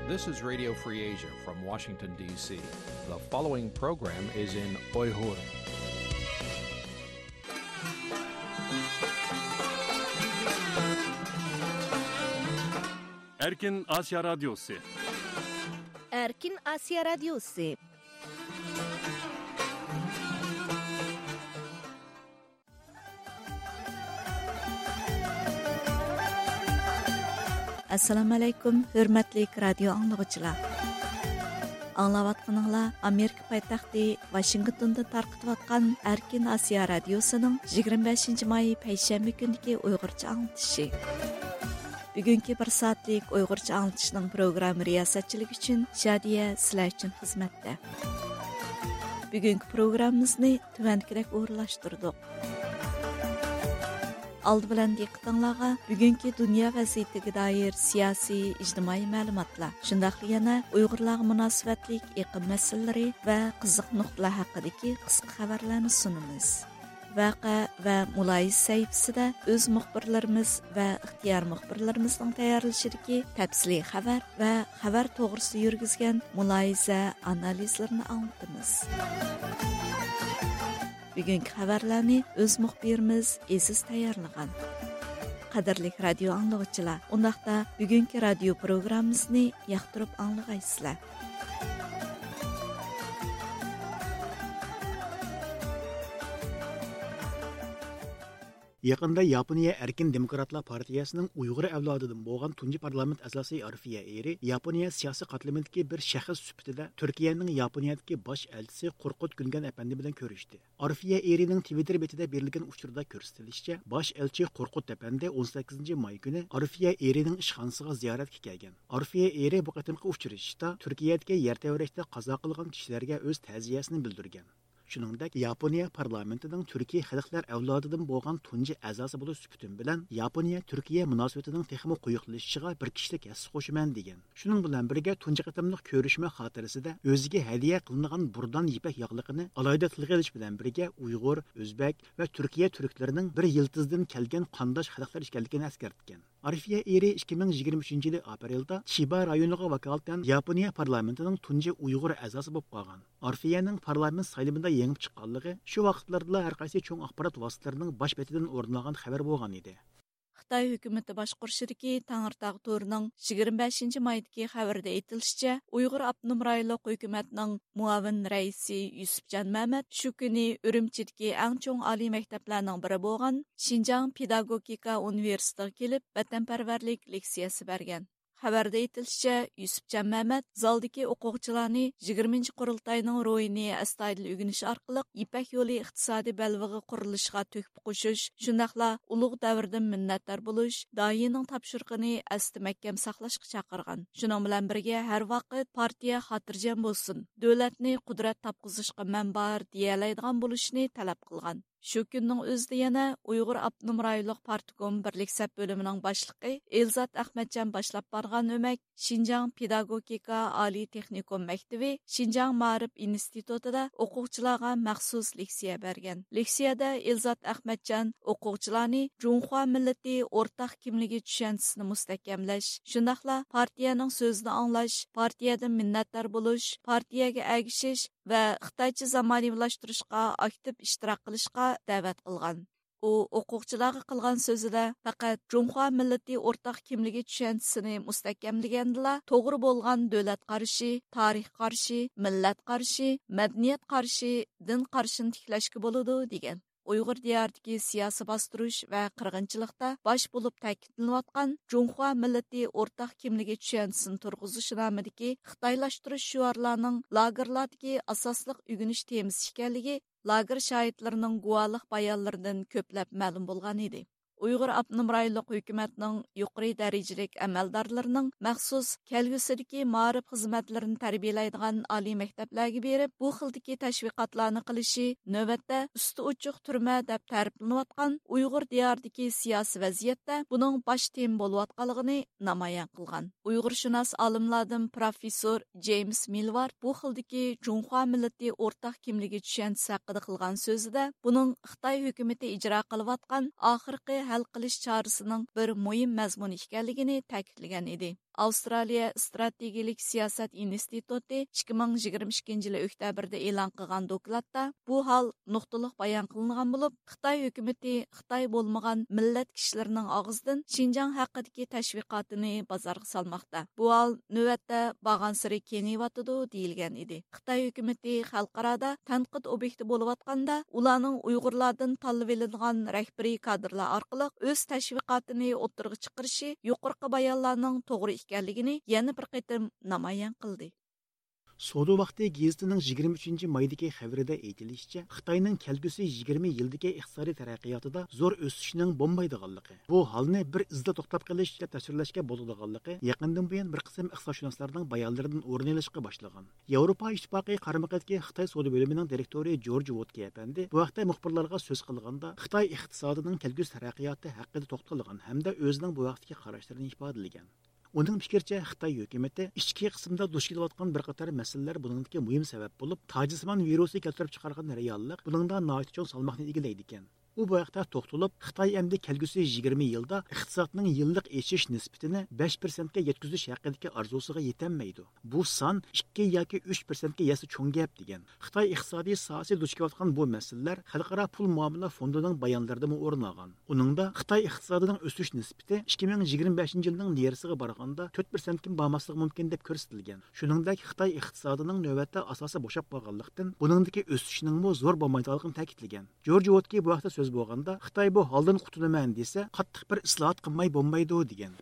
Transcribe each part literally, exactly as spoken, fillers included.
This is Radio Free Asia from Washington, D C. The following program is in Uyghur. Erkin Asya Radyosu. Erkin Asya Radyosu. ئەسسالامۇ ئەلەيكۇم، ھۆرمەتلىك رادىيو ئاڭلىغۇچىلار. ئاڭلاۋاتقىنىڭلار ئامېرىكا پايتەختى ۋاشىنگتوندىن تارقىتىۋاتقان ئەركىن ئاسىيا رادىيوسىنىڭ يىگىرمە بەشىنچى ماي پەيشەنبە كۈنىدىكى ئۇيغۇرچە ئاڭلىتىشى. بۈگۈنكى بىر سائەتلىك ئۇيغۇرچە ئاڭلىتىشنىڭ پروگرامما رىياسەتچىلىكى ئۈچۈن شادىيە سىلەر ئۈچۈن خىزمەتتە. بۈگۈنكى پروگراممىمىزنى تۆۋەندىكىدەك ئورۇنلاشتۇردۇق. ئالدى بىلەن دىققىتىڭلارغا بۈگۈنكى دۇنيا ۋەزىيىتىگە دائىر سىياسىي، ئىجتىمائىي مەلۇماتلار، شۇنداقلا يەنە ئۇيغۇرلارغا مۇناسىۋەتلىك ئېقىم مەسىلىلىرى ۋە قىزىق نۇقتىلار ھەققىدىكى قىسقا خەۋەرلەرنى سۇنىمىز. ۋەقە ۋە مۇلاھىزە سەھىپىسىدە ئۆز مۇخبىرلىرىمىز ۋە ئىختىيار مۇخبىرلىرىمىزنىڭ تەييارلىشىدىكى تەپسىلىي خەۋەر ۋە خەۋەر توغرىسىدا يۈرگۈزگەن مۇلاھىزە، ئانالىزلىرىنى ئاڭلىتىمىز. بۈگۈنكى خەۋەرلەرنى ئۆز مۇخبىرىمىز ئېزىز تەييارلىغان. قەدىرلىك رادىيو ئاڭلىغۇچىلار، ئۇنداقتا بۈگۈنكى رادىيو پروگراممىمىزنى ياقتۇرۇپ ئاڭلىغايسىلەر. يېقىندا ياپونىيە ئەركىن دېموكراتلار پارتىيەسىنىڭ ئۇيغۇر ئەۋلادىدىن بولغان تۇنجى پارلامېنت ئەزاسى ئارفىيە ئېرى ياپونىيە سىياسىي قاتلىمىدىكى بىر شەخس سۈپىتىدە تۈركىيەنىڭ ياپونىيەدىكى باش ئەلچىسى قورقۇت گۈلگەن ئەپەندى بىلەن كۆرۈشتى. ئارفىيە ئېرىنىڭ تىۋىتتېر بېتىدە بېرىلگەن ئۇچۇردا كۆرسىتىلىشىچە، باش ئەلچى قورقۇت ئەپەندى ئون سەككىزىنچى ماي كۈنى ئارفىيە ئېرىنىڭ ئىشخانىسىغا زىيارەتكە كەلگەن. ئارفىيە ئېرى بۇ قېتىمقى ئۇچرىشىشتا تۈركىيەدىكى يەر تەۋرەشتە قازا قىلغان كىشىلەرگە ئۆز تەزىيەسىنى بىلدۈرگەن. شۇنىڭدەك، ياپونىيە پارلامېنتىنىڭ تۈركىي خەلقلەر ئەۋلادىدىن بولغان تۇنجى ئەزاسى بولۇش سۈپىتىم بىلەن ياپونىيە تۈركىيە مۇناسىۋىتىنىڭ تېخىمۇ قويۇقلىشىشىغا بىر كىشىلىك ھەسسە قوشىمەن، دېگەن. شۇنىڭ بىلەن بىرگە، تۇنجى قېتىملىق كۆرۈشمە خاتىرىسىدە ئۆزىگە ھەدىيە قىلىنغان بۇردان يىپەك ياغلىقىنى ئالاھىدە تىلغا ئېلىش بىلەن بىرگە، ئۇيغۇر، ئۆزبەك ۋە تۈركىيە تۈركلىرىنىڭ بىر يىلتىزىدىن كەلگەن قانداش خەلقلەر ئىكەنلىكىنى ئەسكەرتكەن. ئارفىيە ئېرى ئىككى مىڭ يىگىرمە ئۈچىنچى يىلى ئاپرېلدا چىبا رايونىغا ۋاكالىتەن ياپونىيە پارلامېنتىنىڭ تۇنجى ئۇيغۇر ئەزاسى بولۇپ قالغان. ئارفىيەنىڭ پارلامېنت سايلىمىدا يېڭىپ چىققانلىقى شۇ ۋاقىتلاردىلا ھەر قايسى چوڭ ئاخبارات ۋاسىتىلىرىنىڭ باش بېتىدىن ئورۇن ئالغان خەۋەر بولغانىدى. خىتاي ھۆكۈمىتى باشقۇرۇشىدىكى تەڭرىتاغ تورىنىڭ يىگىرمە بەشىنچى مايدىكى خەۋىرىدە ئېيتىلىشىچە، ئۇيغۇر ئاپتونوم رايونلۇق ھۆكۈمەتنىڭ مۇئاۋىن رەئىسى يۈسۈپجان مەمەت شۇ كۈنى ئۈرۈمچىدىكى ئەڭ چوڭ ئالىي مەكتەپلەرنىڭ بىرى بولغان شىنجاڭ پېداگوگىكا ئۇنىۋېرسىتېتىغا كېلىپ، ۋەتەنپەرۋەرلىك لېكسىيەسى بەرگەن. خەۋەردە ئېيتىلىشىچە، يۈسۈپجان مەمەت زالدىكى ئوقۇغۇچىلارنى يىگىرمىنچى قۇرۇلتاينىڭ روھىنى ئەستايىدىل ئۆگىنىش ئارقىلىق يىپەك يولى ئىقتىسادىي بەلبېغى قۇرۇلۇشىغا تۆھپە قوشۇش، شۇنداقلا ئۇلۇغ دەۋردىن مىننەتدار بولۇش، داھىينىڭ تاپشۇرۇقىنى ئەستە مەھكەم ساقلاشقا چاقىرغان. شۇنىڭ بىلەن بىرگە، ھەر ۋاقىت پارتىيە خاتىرجەم بولسۇن، دۆلەتنى قۇدرەت تاپقۇزۇشقا مەن بار دېيەلەيدىغان بولۇشنى تەلەپ قىلغان. شۇ كۈننىڭ ئۆزىدە يەنە ئۇيغۇر ئاپتونوم رايونلۇق پارتكوم بىرلىك سەپ بۆلۈمىنىڭ باشلىقى ئېلزات ئەخمەتجان باشلاپ بارغان ئۆمەك شىنجاڭ پېداگوگىكا ئالىي تېخنىكوم مەكتىۋى شىنجاڭ مائارىپ ئىنستىتۇتىدا ئوقۇغۇچىلارغا مەخسۇس لېكسىيە بەرگەن. لېكسىيەدە ئېلزات ئەخمەتجان ئوقۇغۇچىلارنى جۇڭخۇا مىللىتى ئورتاق كىملىكى چۈشەنچىسىنى مۇستەھكەملەش، شۇنداقلا پارتىيەنىڭ سۆزىنى ئاڭلاش، پارتىيەدىن مىننەتدار بولۇش، پارتىيەگە ئەگىشىش، ۋە خىتايچە زامانىۋىلاشتۇرۇشقا ئاكتىپ ئىشتىراك قىلىشقا دەۋەت قىلغان. ئۇ ئوقۇغۇچىلارغا قىلغان سۆزىدە پەقەت جۇڭخۇا مىللىتى ئورتاق كىملىكى چۈشەنچىسىنى مۇستەھكەملىگەندىلا، توغرا بولغان دۆلەت قارىشى، تارىخ قارىشى، مىللەت قارىشى، مەدەنىيەت قارىشى، دىن قارىشىنى تىكلەشكە بولىدۇ، دېگەن. ئۇيغۇر دىيارىدىكى سىياسىي باستۇرۇش ۋە قىرغىنچىلىقتا باش بولۇپ تەكىتلىنىۋاتقان جۇڭخۇا مىللىتى ئورتاق كىملىكى چۈشەنچىسىنى تۇرغۇزۇش نامىدىكى خىتايلاشتۇرۇش شوئارلارنىڭ لاگېرلاردىكى ئاساسلىق ئۆگىنىش تېمىسى ئىكەنلىكى لاگېر شاھىتلىرىنىڭ گۇۋاھلىق بايانلىرىدىن كۆپلەپ مەلۇم بولغان ئىدى. ئۇيغۇر ئاپتونوم رايونلۇق ھۆكۈمەتنىڭ يۇقىرى دەرىجىلىك ئەمەلدارلىرىنىڭ مەخسۇس كەلگۈسىدىكى مائارىپ خىزمەتلىرىنى تەربىيەلەيدىغان ئالىي مەكتەپلەرگە بېرىپ، بۇ خىلدىكى تەشۋىقاتلارنى قىلىشى نۆۋەتتە ئۈستى ئوچۇق تۈرمە دەپ تەرىپلىنىۋاتقان ئۇيغۇر دىيارىدىكى سىياسىي ۋەزىيەتتە بۇنىڭ باش تېما بولۇۋاتقانلىقىنى نامايان قىلغان. ئۇيغۇرشۇناس ئالىملاردىن پروفېسسور جېيمس مىلۋار بۇ خىلدىكى جۇڭخۇا مىللىتى ئورتاق كىملىكى چۈشەنچىسى ھەققىدە قىلغان سۆزىدە، بۇنىڭ خىتاي ھۆكۈمىتى ئىجرا قىلىۋاتقان ئاخىرقى ھەل قىلىش چارىسىنىڭ بىر مۇھىم مەزمۇنى ئىكەنلىكىنى تەكىتلىگەن ئىدى. ئاۋسترالىيە ئىستراتېگىيىلىك سىياسەت ئىنستىتۇتى ئىككى مىڭ يىگىرمە ئىككىنچى يىلى ئۆكتەبىردە ئېلان قىلغان دوكلاتتا بۇ ھال نۇقتىلىق بايان قىلىنغان بولۇپ، خىتاي ھۆكۈمىتى خىتاي بولمىغان مىللەت كىشىلىرىنىڭ ئاغزىدىن شىنجاڭ ھەققىدىكى تەشۋىقاتىنى بازارغا سالماقتا. بۇ ھال نۆۋەتتە بارغانسېرى كېڭىيىۋاتىدۇ، دېيىلگەن ئىدى. خىتاي ھۆكۈمىتى خەلقئارادا تەنقىد ئوبيېكتى بولۇۋاتقاندا، ئۇلارنىڭ ئۇيغۇرلاردىن تاللىۋېلىنغان رەھبىرىي كادىرلار ئارقىلىق ئۆز تەشۋىقاتىنى ئوتتۇرىغا چىقىرىشى يۇقىرىقى بايانلارنىڭ توغرا ئىكەنلىكىنى يەنە بىر قېتىم نامايان قىلدى. سودا ۋاقتى گېزىتىنىڭ يىگىرمە ئۈچىنچى مايدىكى خەۋىرىدە ئېيتىلىشىچە، خىتاينىڭ كەلگۈسى يىگىرمە يىلدىكى ئىقتىسادىي تەرەققىياتىدا زور ئۆسۈشنىڭ بولمايدىغانلىقى، بۇ ھالنى بىر ئىزدا توختاپ قېلىش دەپ تەسۋىرلەشكە بولىدىغانلىقى يېقىندىن بۇيان بىر قىسىم ئىقتىسادشۇناسلارنىڭ بايانلىرىدىن ئورۇن ئېلىشقا باشلىغان. ياۋروپا ئىتتىپاقى قارىمىقىدىكى خىتاي سودا بۆلۈمىنىڭ دىرېكتورى جورج ۋودكې ئەپەندى بۇ ھەقتە مۇخبىرلارغا سۆز قىلغاندا، خىتاي ئىقتىسادىنىڭ كەلگۈسى تەرەققىياتى ھەققىدە توختالغان ھەمدە ئۆزىنىڭ بۇ ھەقتىكى قاراشلىرىنى ئىپادىلىگەن. ئۇنىڭ پىكرىچە، خىتاي ھۆكۈمىتى ئىچكى قىسىمدا دۇچ كېلىۋاتقان بىر قاتار مەسىلىلەر بۇنىڭدىكى مۇھىم سەۋەب بولۇپ، تاجسىمان ۋىرۇسى كەلتۈرۈپ چىقارغان رېئاللىق بۇنىڭدا ناھايىتى چوڭ سالماقنى ئىگىلەيدىكەن. ئۇ بۇ ھەقتە توختىلىپ، خىتاي ئەمدى كەلگۈسى يىگىرمە يىلدا ئىقتىسادنىڭ يىللىق ئېشىش نىسبىتىنى بەش پىرسەنتكە يەتكۈزۈش ھەققىدىكى ئارزۇسىغا يېتەلمەيدۇ. بۇ سان ئىككى ياكى ئۈچ پىرسەنتكە يەتسە چوڭ گەپ، دېگەن. خىتاي ئىقتىسادىي ساھەسى دۇچ كېلىۋاتقان بۇ مەسىلىلەر خەلقئارا پۇل مۇئامىلە فوندىنىڭ بايانلىرىدىمۇ ئورۇن ئالغان. ئۇنىڭدا خىتاي ئىقتىسادىنىڭ ئۆسۈش نىسبىتى ئىككى مىڭ يىگىرمە بەشىنچى يىلنىڭ نېرىسىغا بارغاندا تۆت پىرسەنتكىمۇ بارماسلىقى مۇمكىن دەپ كۆرسىتىلگەن. شۇنىڭدەك خىتاي ئىقتىسادىنىڭ نۆۋەتتە ئاساسى بوشاپ قالغانلىقتىن، بۇنىڭدىكى ئۆسۈشنىڭمۇ زور بولمايدىغانلىقىنى تەكىتلىگەن. جورج ۋودكې بۇ ھەقتە سۆز بولغاندا، خىتاي بۇ ھالدىن قۇتۇلىمەن دېسە، قاتتىق بىر ئىسلاھات قىلماي بولمايدۇ، دېگەن.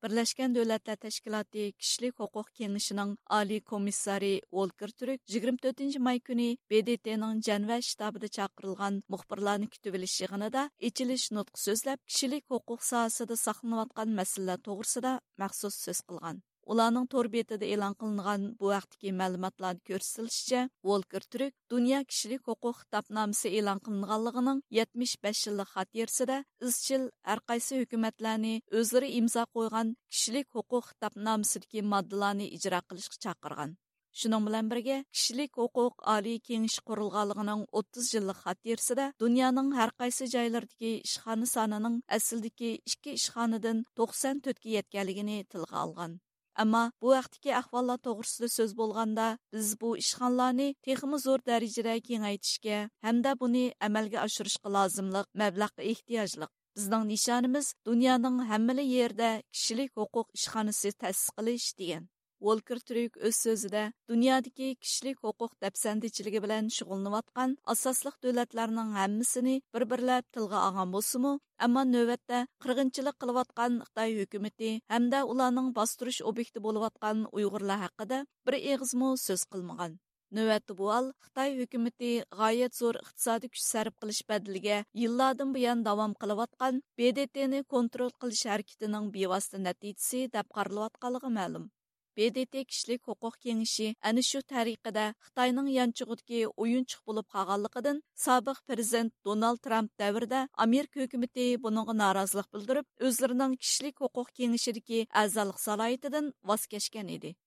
بىرلەشكەن دۆلەتلەر تەشكىلاتى كىشىلىك ھوقۇق كېڭىشىنىڭ ئالىي كومىسسارى ۋولكېر تۈرك يىگىرمە تۆتىنچى ماي كۈنى ب د ت نىڭ جەنۋە شتابىدا چاقىرىلغان مۇخبىرلارنى كۈتۈۋېلىش يىغىنىدا ئېچىلىش نۇتقى سۆزلەپ، كىشىلىك ھوقۇق ساھەسىدە ساقلىنىۋاتقان مەسىلىلەر توغرىسىدا مەخسۇس سۆز قىلغان. ئۇلارنىڭ تور بېتىدە ئېلان قىلىنغان بۇ ھەقتىكى مەلۇماتلاردا كۆرسىتىلىشىچە، ۋولكېر تۈرك دۇنيا كىشىلىك ھوقۇق خىتابنامىسى ئېلان قىلىنغانلىقىنىڭ يەتمىش بەش يىللىق خاتىرىسىدە ئىزچىل ھەرقايسى ھۆكۈمەتلەرنى ئۆزلىرى ئىمزا قويغان كىشىلىك ھوقۇق خىتابنامىسىدىكى ماددىلارنى ئىجرا قىلىشقا چاقىرغان. شۇنىڭ بىلەن بىرگە، كىشىلىك ھوقۇق ئالىي كېڭىشى قۇرۇلغانلىقىنىڭ ئوتتۇز يىللىق خاتىرىسىدە دۇنيانىڭ ھەرقايسى جايلىرىدىكى ئىشخانا سانىنىڭ ئەسلىدىكى ئىككى ئىشخانىدىن توقسان تۆتكە يەتكەنلىكىنى تىلغا ئالغان. ئەمما بۇ ھەقتىكى ئەھۋاللار توغرىسىدا سۆز بولغاندا، بىز بۇ ئىشخانىلارنى تېخىمۇ زور دەرىجىدە كېڭەيتىشكە ھەمدە بۇنى ئەمەلگە ئاشۇرۇشقا لازىملىق مەبلەغقە ئېھتىياجلىق. بىزنىڭ نىشانىمىز دۇنيانىڭ ھەممىلا يېرىدە كىشىلىك ھوقۇق ئىشخانىسى تەسىس قىلىش، دېگەن. ۋولكېر تۈرك ئۆز سۆزىدە، دۇنيادىكى كىشىلىك ھوقۇق دەپسەندىچىلىكى بىلەن شۇغۇللىنىۋاتقان ئاساسلىق دۆلەتلەرنىڭ ھەممىسىنى بىر-بىرلەپ تىلغا ئالغان بولسىمۇ، ئەمما نۆۋەتتە قىرغىنچىلىق قىلىۋاتقان خىتاي ھۆكۈمىتى ھەمدە ئۇلارنىڭ باستۇرۇش ئوبيېكتى بولۇۋاتقان ئۇيغۇرلار ھەققىدە بىر ئېغىزمۇ سۆز قىلمىغان. نۆۋەتتە بۇ ھال خىتاي ھۆكۈمىتى غايەت زور ئىقتىسادىي كۈچ سەرپ قىلىش بەدىلىگە يىللاردىن بۇيان داۋام قىلىۋاتقان ب د ت نى كونترول قىلىش ھەرىكىتىنىڭ بىۋاسىتە نەتىجىسى دەپ قارىلىۋاتقانلىقى مەلۇم. ب د ت كىشىلىك ھوقۇق كېڭىشى ئەنە شۇ تەرىقىدە خىتاينىڭ يانچۇقىدىكى ئويۇنچۇق بولۇپ قالغانلىقىدىن، سابىق پىرېزىدېنت دونالد ترامپ دەۋرىدە ئامېرىكا ھۆكۈمىتى بۇنىڭغا نارازىلىق بىلدۈرۈپ، ئۆزلىرىنىڭ كىشىلىك ھوقۇق كېڭىشىدىكى ئەزالىق سالاھىيىتىدىن ۋاز كەچكەن ئىدى.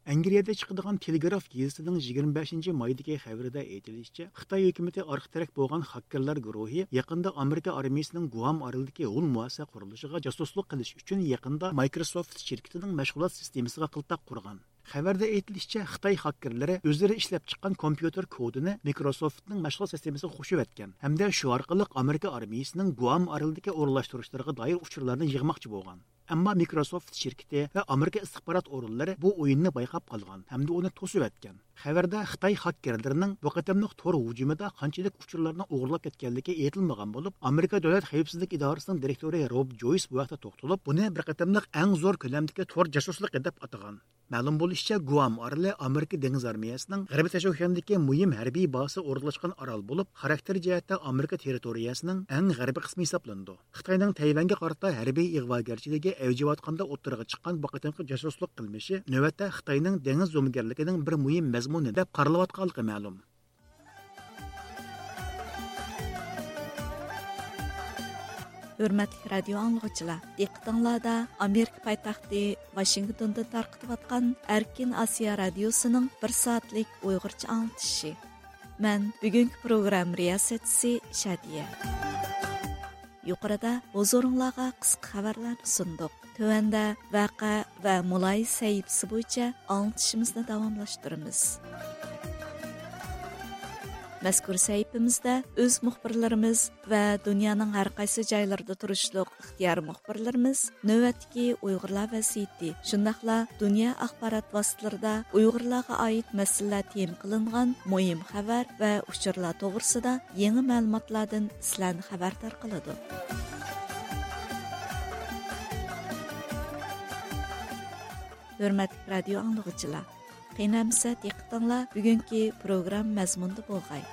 ئەنگلىيەدە چىقىدىغان تېلېگراف گېزىتىنىڭ يىگىرمە بەشىنچى مايدىكى خەۋىرىدە ئېيتىلىشىچە، خىتاي ھۆكۈمىتى ئارقا تىرەك بولغان خاككېرلار گۇرۇھى يېقىندا ئامېرىكا ئارمىيىسىنىڭ گۇئام ئارىلىدىكى ھۇل مۇئەسسە قۇرۇلۇشىغا جاسۇسلۇق قىلىش ئۈچۈن يېقىندا مايكروسوفت شىركىتىنىڭ مەشغۇلات سىستېمىسىغا قىلتاق قۇرغان. خەۋەردە ئېيتىلىشىچە، خىتاي خاككېرلىرى ئۆزلىرى ئىشلەپچىققان كومپيۇتېر كودىنى مىكروسوفتنىڭ مەشغۇلات سىستېمىسىغا قوشۇۋەتكەن ھەمدە شۇ ئارقىلىق ئامېرىكا ئارمىيىسىنىڭ گۇئام ئارىلىدىكى ئورۇنلاشتۇرۇشلىرىغا دائىر ئۇچۇرلارنى يىغماقچى بولغان. ئەمما مىكروسوفت شىركىتى ۋە ئامېرىكا ئىستىخبارات ئورۇنلىرى بۇ ئويۇننى بايقاپ قالغان ھەمدە ئۇنى توسۇۋەتكەن. خەۋەردە خىتاي خاككېرلىرىنىڭ بۇ قېتىملىق تور ھۇجۇمىدا قانچىلىك ئۇچۇرلارنى ئوغرىلاپ كەتكەنلىكى ئېيتىلمىغان بولۇپ، ئامېرىكا دۆلەت خەۋپسىزلىك ئىدارىسىنىڭ دىرېكتورى روب جويس بۇ ھەقتە توختىلىپ، بۇنى بىر قېتىملىق ئەڭ زور كۆلەمدىكى تور جاسۇسلۇقى دەپ ئاتىغان. مەلۇم بولۇشىچە، گۇئام ئارىلى ئامېرىكا دېڭىز ئارمىيەسىنىڭ غەربىي تاشوشياندىكى مۇھىم ھەربىي بازىسى ئورۇنلاشقان ئارال بولۇپ، خاراكتېر جەھەتتە ئامېرىكا تېررىتورىيەسىنىڭ ئەڭ غەربىي قىسمى ھېسابلىنىدۇ. خىتاينىڭ تەيۋەنگە قارىتا ھەربىي ئىغۋاگەرچىلىكى ئەۋجىۋاتقاندا ئوتتۇرىغا چىققان بۇ قېتىمقى جاسۇسلۇق قىلمىشى نۆۋەتتە خىتاينىڭ دېڭىز زومىگەرلىكىنىڭ بىر مۇھىم مەزمۇنى دەپ قارىلىۋاتقانلىقى مەلۇم. ھۆرمەتلىك رادىيو ئاڭلىغۇچىلار، دىققىتىڭلاردا ئامېرىكا پايتەختى ۋاشىنگتوندىن تارقىتىۋاتقان ئەركىن ئاسىيا رادىيوسىنىڭ بىر سائەتلىك ئۇيغۇرچە ئاڭلىتىشى. مەن بۈگۈنكى پروگرامما رىياسەتچىسى شادىيە. يۇقىرىدا ھۇزۇرۇڭلارغا قىسقا خەۋەرلەرنى سۇندۇق. تۆۋەندە ۋەقە ۋە مۇلاھىزە سەھىپىسى بويىچە ئاڭلىتىشىمىزنى داۋاملاشتۇرىمىز. مەزكۇر سەھىپىمىزدە ئۆز مۇخبىرلىرىمىز ۋە دۇنيانىڭ ھەر قايسى جايلىرىدا تۇرۇشلۇق ئىختىيارىي مۇخبىرلىرىمىز نۆۋەتتىكى ئۇيغۇرلار ۋەزىيىتى، شۇنداقلا دۇنيا ئاخبارات ۋاسىتىلىرىدا ئۇيغۇرلارغا ئائىت مەسىلىلەر تېما قىلىنغان مۇھىم خەۋەر ۋە ئۇچۇرلار توغرىسىدا يېڭى مەلۇماتلاردىن سىلەرنى خەۋەردار قىلىدۇ. ھۆرمەتلىك رادىيو ئاڭلىغۇچىلار، قېنى ئەمىسە دىققىتىڭلار بۈگۈنكى پروگرامما مەزمۇنىدا بولغاي.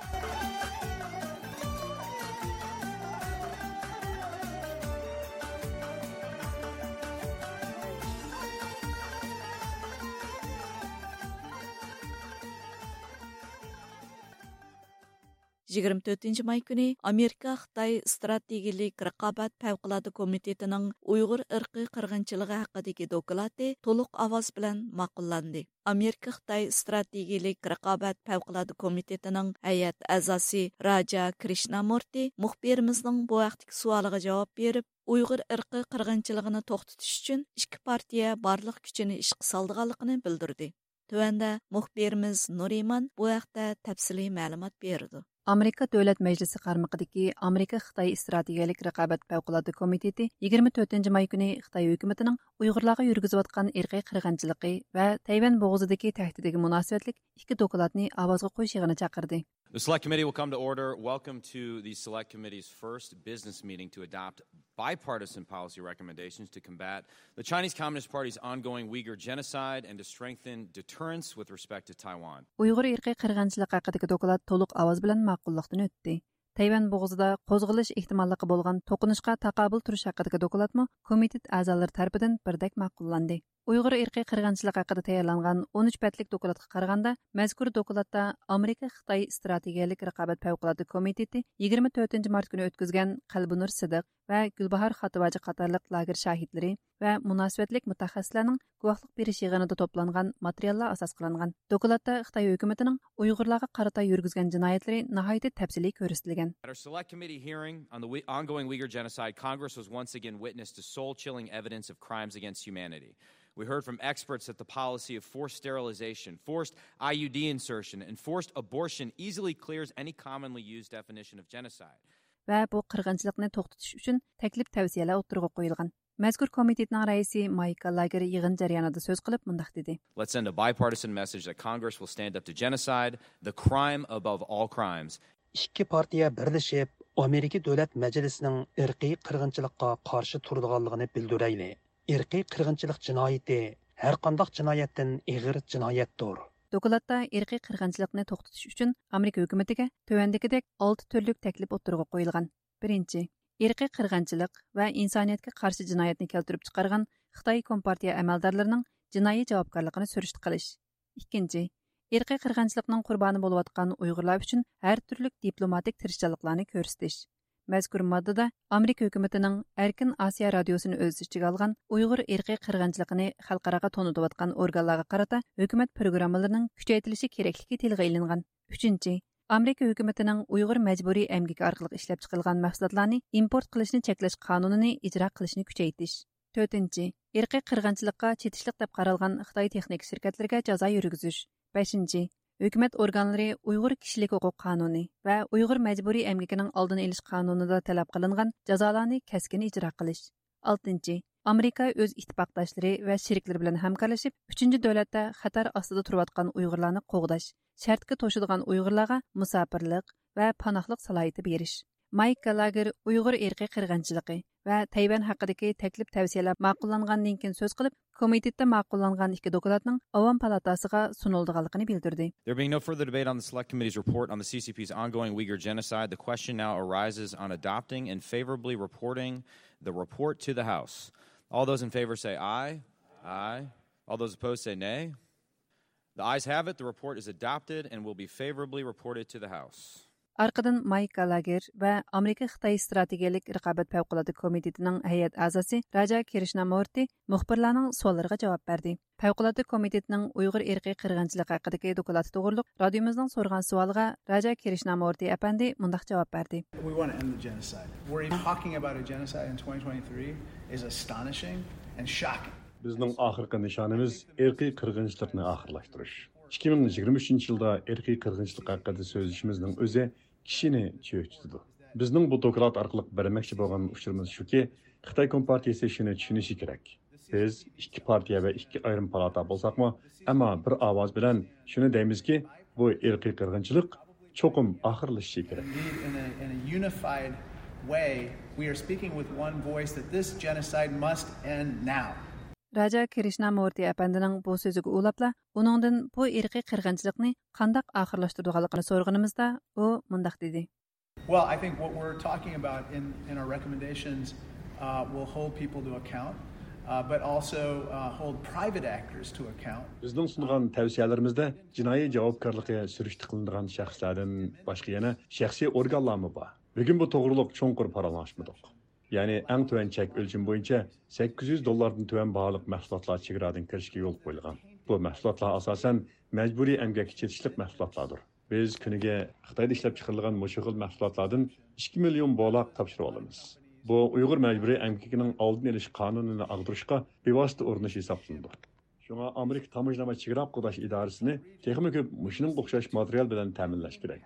يىگىرمە تۆتىنچى ماي كۈنى ئامېرىكا خىتاي ئىستراتېگىيىلىك رىقابەت پەۋقۇلئاددە كومىتېتىنىڭ ئۇيغۇر ئىرقىي قىرغىنچىلىقى ھەققىدىكى دوكلاتى تولۇق ئاۋاز بىلەن ماقۇللاندى. ئامېرىكا خىتاي ئىستراتېگىيىلىك رىقابەت پەۋقۇلئاددە كومىتېتىنىڭ ھەيئەت ئەزاسى راجا كرىشنامۇرتى مۇخبىرىمىزنىڭ بۇ ھەقتىكى سوئالىغا جاۋاب بېرىپ، ئۇيغۇر ئىرقىي قىرغىنچىلىقىنى توختىتىش ئۈچۈن ئىككى پارتىيە بارلىق كۈچىنى ئىشقا سالىدىغانلىقىنى بىلدۈردى. تۆۋەندە مۇخبىرىمىز نۇرىمان بۇ ھەقتە تەپسىلىي مەلۇمات بېرىدۇ. ئامېرىكا دۆلەت مەجلىسى قارمىقىدىكى ئامېرىكا خىتاي ئىستراتېگىيەلىك رىقابەت پەۋقۇلئاددە كومىتېتى يىگىرمە تۆتىنچى ماي كۈنى خىتاي ھۆكۈمىتىنىڭ ئۇيغۇرلارغا يۈرگۈزۈۋاتقان ئىرقىي قىرغىنچىلىقى ۋە تەيۋەن بوغۇزىدىكى تەھدىتىگە مۇناسىۋەتلىك ئىككى دوكلاتنى ئاۋازغا قويۇش يىغىنى چاقىردى. The Select Committee will come to order. Welcome to the Select Committee's first business meeting to adopt bipartisan policy recommendations to combat the Chinese Communist Party's ongoing Uyghur genocide and to strengthen deterrence with respect to Taiwan. ئۇيغۇر ئىرقىي قىرغىنچىلىقى ھەققىدىكى دوكلات تولۇق ئاۋاز بىلەن ماقۇللۇقتىن ئۆتتى. تەيۋەن بوغۇزىدا قوزغىلىش ئېھتىماللىقى بولغان توقۇنۇشقا تاقابىل تۇرۇش ھەققىدىكى دوكلاتمۇ كومىتېت ئەزالىرى تەرىپىدىن بىردەك ماقۇللاندى. ئۇيغۇر ئىرقىي قىرغىنچىلىقى ھەققىدە تەييارلانغان ئون ئۈچ بەتلىك دوكلاتقا قارىغاندا، مەزكۇر دوكلاتتا ئامېرىكا خىتاي ئىستراتېگىيەلىك رىقابەت پەۋقۇلئاددە كومىتېتى يىگىرمە تۆتىنچى مارت كۈنى ئۆتكۈزگەن قەلبىنۇر سىدىق ۋە گۈلباھار خاتىۋاجى قاتارلىق لاگېر شاھىتلىرى ۋە مۇناسىۋەتلىك مۇتەخەسسىسلەرنىڭ گۇۋاھلىق بېرىش يىغىنىدا توپلانغان ماتېرىياللار ئاساس قىلىنغان. دوكلاتتا خىتاي ھۆكۈمىتىنىڭ ئۇيغۇرلارغا قارىتا يۈرگۈزگەن جىنايەتلىرى ناھايىتى تەپسىلىي كۆرسىتىلگەن. At our Select Committee hearing on the Ui- ongoing Uyghur genocide, Congress was once again witness to soul-chilling evidence of crimes against humanity. We heard from experts that the policy of forced sterilization, forced I U D insertion, and forced abortion easily clears any commonly used definition of genocide. ۋە بۇ قىرغىنچىلىقنى توختىتىش ئۈچۈن تەكلىپ تەۋسىيەلەر ئوتتۇرىغا قويۇلغان. مەزكۇر كومىتېتنىڭ رەئىسى مايك گالاگېر يىغىن جەريانىدا سۆز قىلىپ مۇنداق دېدى. Let's send a bipartisan message that Congress will stand up to genocide, the crime above all crimes. ئىككى پارتىيە بىرلىشىپ ئامېرىكا دۆلەت مەجلىسىنىڭ ئىرقىي قىرغىنچىلىققا قارشى تۇرىدىغانلىقىنى بىلدۈرەيلى. ئىرقىي قىرغىنچىلىق جىنايىتى ھەرقانداق جىنايەتتىن ئېغىر جىنايەتتۇر. دوكلاتتا ئىرقىي قىرغىنچىلىقنى توختىتىش ئۈچۈن ئامېرىكا ھۆكۈمىتىگە تۆۋەندىكىدەك ئالتە تۈرلۈك تەكلىپ ئوتتۇرىغا قويۇلغان. بىرىنچى، ئىرقىي قىرغىنچىلىق ۋە ئىنسانىيەتكە قارشى جىنايەتنى كەلتۈرۈپ چىقارغان خىتاي كومپارتىيە ئەمەلدارلىرىنىڭ جىنايى جاۋابكارلىقىنى سۈرۈشتە قىلىش. ئىككىنچى، ئىرقىي قىرغىنچىلىقنىڭ قۇربانى بولۇۋاتقان ئۇيغۇرلار ئۈچۈن ھەر تۈرلۈك دىپلوماتىك تىرىشچانلىقلارنى كۆرسىتىش. مەزكۇر ماددىدا ئامېرىكا ھۆكۈمىتىنىڭ ئەركىن ئاسىيا رادىيوسىنى ئۆز ئىچىگە ئالغان ئۇيغۇر ئىرقىي قىرغىنچىلىقىنى خەلقئاراغا تونۇتۇۋاتقان ئورگانلارغا قارىتا ھۆكۈمەت پروگراممىلىرىنىڭ كۈچەيتىلىشى كېرەكلىكى تىلغا ئېلىنغان. ئۈچىنچى، ئامېرىكا ھۆكۈمىتىنىڭ ئۇيغۇر مەجبۇرىي ئەمگىكى ئارقىلىق ئىشلەپچىقىرىلغان مەھسۇلاتلارنى ئىمپورت قىلىشنى چەكلەش قانۇنىنى ئىجرا قىلىشنى كۈچەيتىش. تۆتىنچى، ئىرقىي قىرغىنچىلىققا چېتىشلىق دەپ قارالغان خىتاي تېخنىكا شىركەتلىرىگە جازا يۈرگۈزۈش. بەشىنچى، ھۆكۈمەت ئورگانلىرى ئۇيغۇر كىشىلىك ھوقۇق قانۇنى ۋە ئۇيغۇر مەجبۇرىي ئەمگىكىنىڭ ئالدىنى ئېلىش قانۇنىدا تەلەپ قىلىنغان جازالارنى كەسكىن ئىجرا قىلىش. ئالتىنچى، ئامېرىكا ئۆز ئىتتىپاقداشلىرى ۋە شېرىكلىرى بىلەن ھەمكارلىشىپ، ئۈچىنچى دۆلەتتە خەتەر ئاستىدا تۇرۇۋاتقان ئۇيغۇرلارنى قوغداش، شەرتكە توشىدىغان ئۇيغۇرلارغا مۇساپىرلىق ۋە پاناھلىق سالاھىيىتى بېرىش. مايك گالاگېر ئۇيغۇر ئىرقىي قىرغىنچىلىقى ۋە تەيۋەن ھەققىدىكى تەكلىپ تەۋسىيەلەر ماقۇللانغاندىن كېيىن سۆز قىلىپ، كومىتېتتا ماقۇللانغان ئىككى دوكلاتنىڭ ئاۋام پالاتاسىغا سۇنۇلىدىغانلىقىنى بىلدۈردى. There being no further debate on the Select Committee's report on the C C P's ongoing Uyghur genocide, the question now arises on adopting and favorably reporting the report to the House. All those in favor say aye. Aye. All those opposed say nay. The ayes have it. The report is adopted and will be favorably reported to the House. ئارقىدىن مايك گالاگېر ۋە ئامېرىكا خىتاي ئىستراتېگىيەلىك رىقابەت پەۋقۇلئاددە كومىتېتىنىڭ ھەيئەت ئەزاسى راجا كىرىشنامۇرتى مۇخبىرلارنىڭ سوئاللىرىغا جاۋاب بەردى. پەۋقۇلئاددە كومىتېتىنىڭ ئۇيغۇر ئىرقىي قىرغىنچىلىقى ھەققىدىكى دوكلاتى توغرۇلۇق رادىيومىزنىڭ سورىغان سوئالىغا راجا كىرىشنامۇرتى ئەپەندى مۇنداق جاۋاب بەردى. We want to end the genocide. We're talking about a genocide in twenty twenty-three is astonishing and shocking. بىزنىڭ ئاخىرقى نىشانىمىز ئىرقىي قىرغىنچىلىقنى ئاخىرلاشتۇرۇش. ئىككى مىڭ يىگىرمە ئۈچىنچى يىلدا ئىرقىي قىرغىنچىلىق ھەققىدە سۆزلىشىمىزنىڭ ئۆزى كىشىنى چۆچۈتىدۇ. بىزنىڭ بۇ دوكلات ئارقىلىق بەرمەكچى بولغان ئۇچۇرىمىز شۇكى، خىتاي كومپارتىيىسى شۇنى چۈشىنىشى كېرەك. بىز ئىككى پارتىيە ۋە ئىككى ئايرىم پالاتا بولساقمۇ، ئەمما بىر ئاۋاز بىلەن شۇنى دەيمىزكى، بۇ ئىرقىي قىرغىنچىلىق چوقۇم ئاخىرلىشىشى كېرەك. Indeed, in a, in a unified way, we are speaking with one voice that this genocide must end now. راجا كىرىشنامۇرتى ئەپەندىنىڭ بۇ سۆزىگە ئۇلاپلا، ئۇنىڭدىن بۇ ئىرقىي قىرغىنچىلىقنى قانداق ئاخىرلاشتۇرىدىغانلىقىنى سورىغىنىمىزدا، ئۇ مۇنداق دېدى. Well, I think what we're talking about in, in our recommendations, uh, will hold people to account, uh, but also, uh, hold private actors to account. بىزنىڭ سۇنغان تەۋسىيەلىرىمىزدە جىنايى جاۋابكارلىقى سۈرۈشتە قىلىنىدىغان شەخسلەردىن باشقا يەنە شەخسىي ئورگانلارمۇ بار. بۈگۈن بۇ توغرۇلۇق چوڭقۇر پاراڭلاشمىدۇق. يەنى ئەڭ تۆۋەن چەك ئۆلچىمى بويىچە سەككىز يۈز دوللاردىن تۆۋەن باھالىق مەھسۇلاتلار چېگرادىن كىرىشكە يول قويۇلغان. بۇ مەھسۇلاتلار ئاساسەن مەجبۇرىي ئەمگەككە چېتىشلىق مەھسۇلاتلاردۇر. بىز كۈنىگە خىتايدا ئىشلەپ چىقىرىلغان مۇشۇ خىل مەھسۇلاتلاردىن ئىككى مىليون بولاق تاپشۇرۇۋالىمىز. بۇ ئۇيغۇر مەجبۇرىي ئەمگىكىنىڭ ئالدىنى ئېلىش قانۇنىنى ئاغدۇرۇشقا بىۋاسىتە ئۇرۇنۇش ھېسابلىنىدۇ. شۇڭا ئامېرىكا تاموژنا ۋە چېگرا قوغداش ئىدارىسىنى تېخىمۇ كۆپ مۇشۇنىڭغا ئوخشاش ماتېرىيال بىلەن تەمىنلەش كېرەك.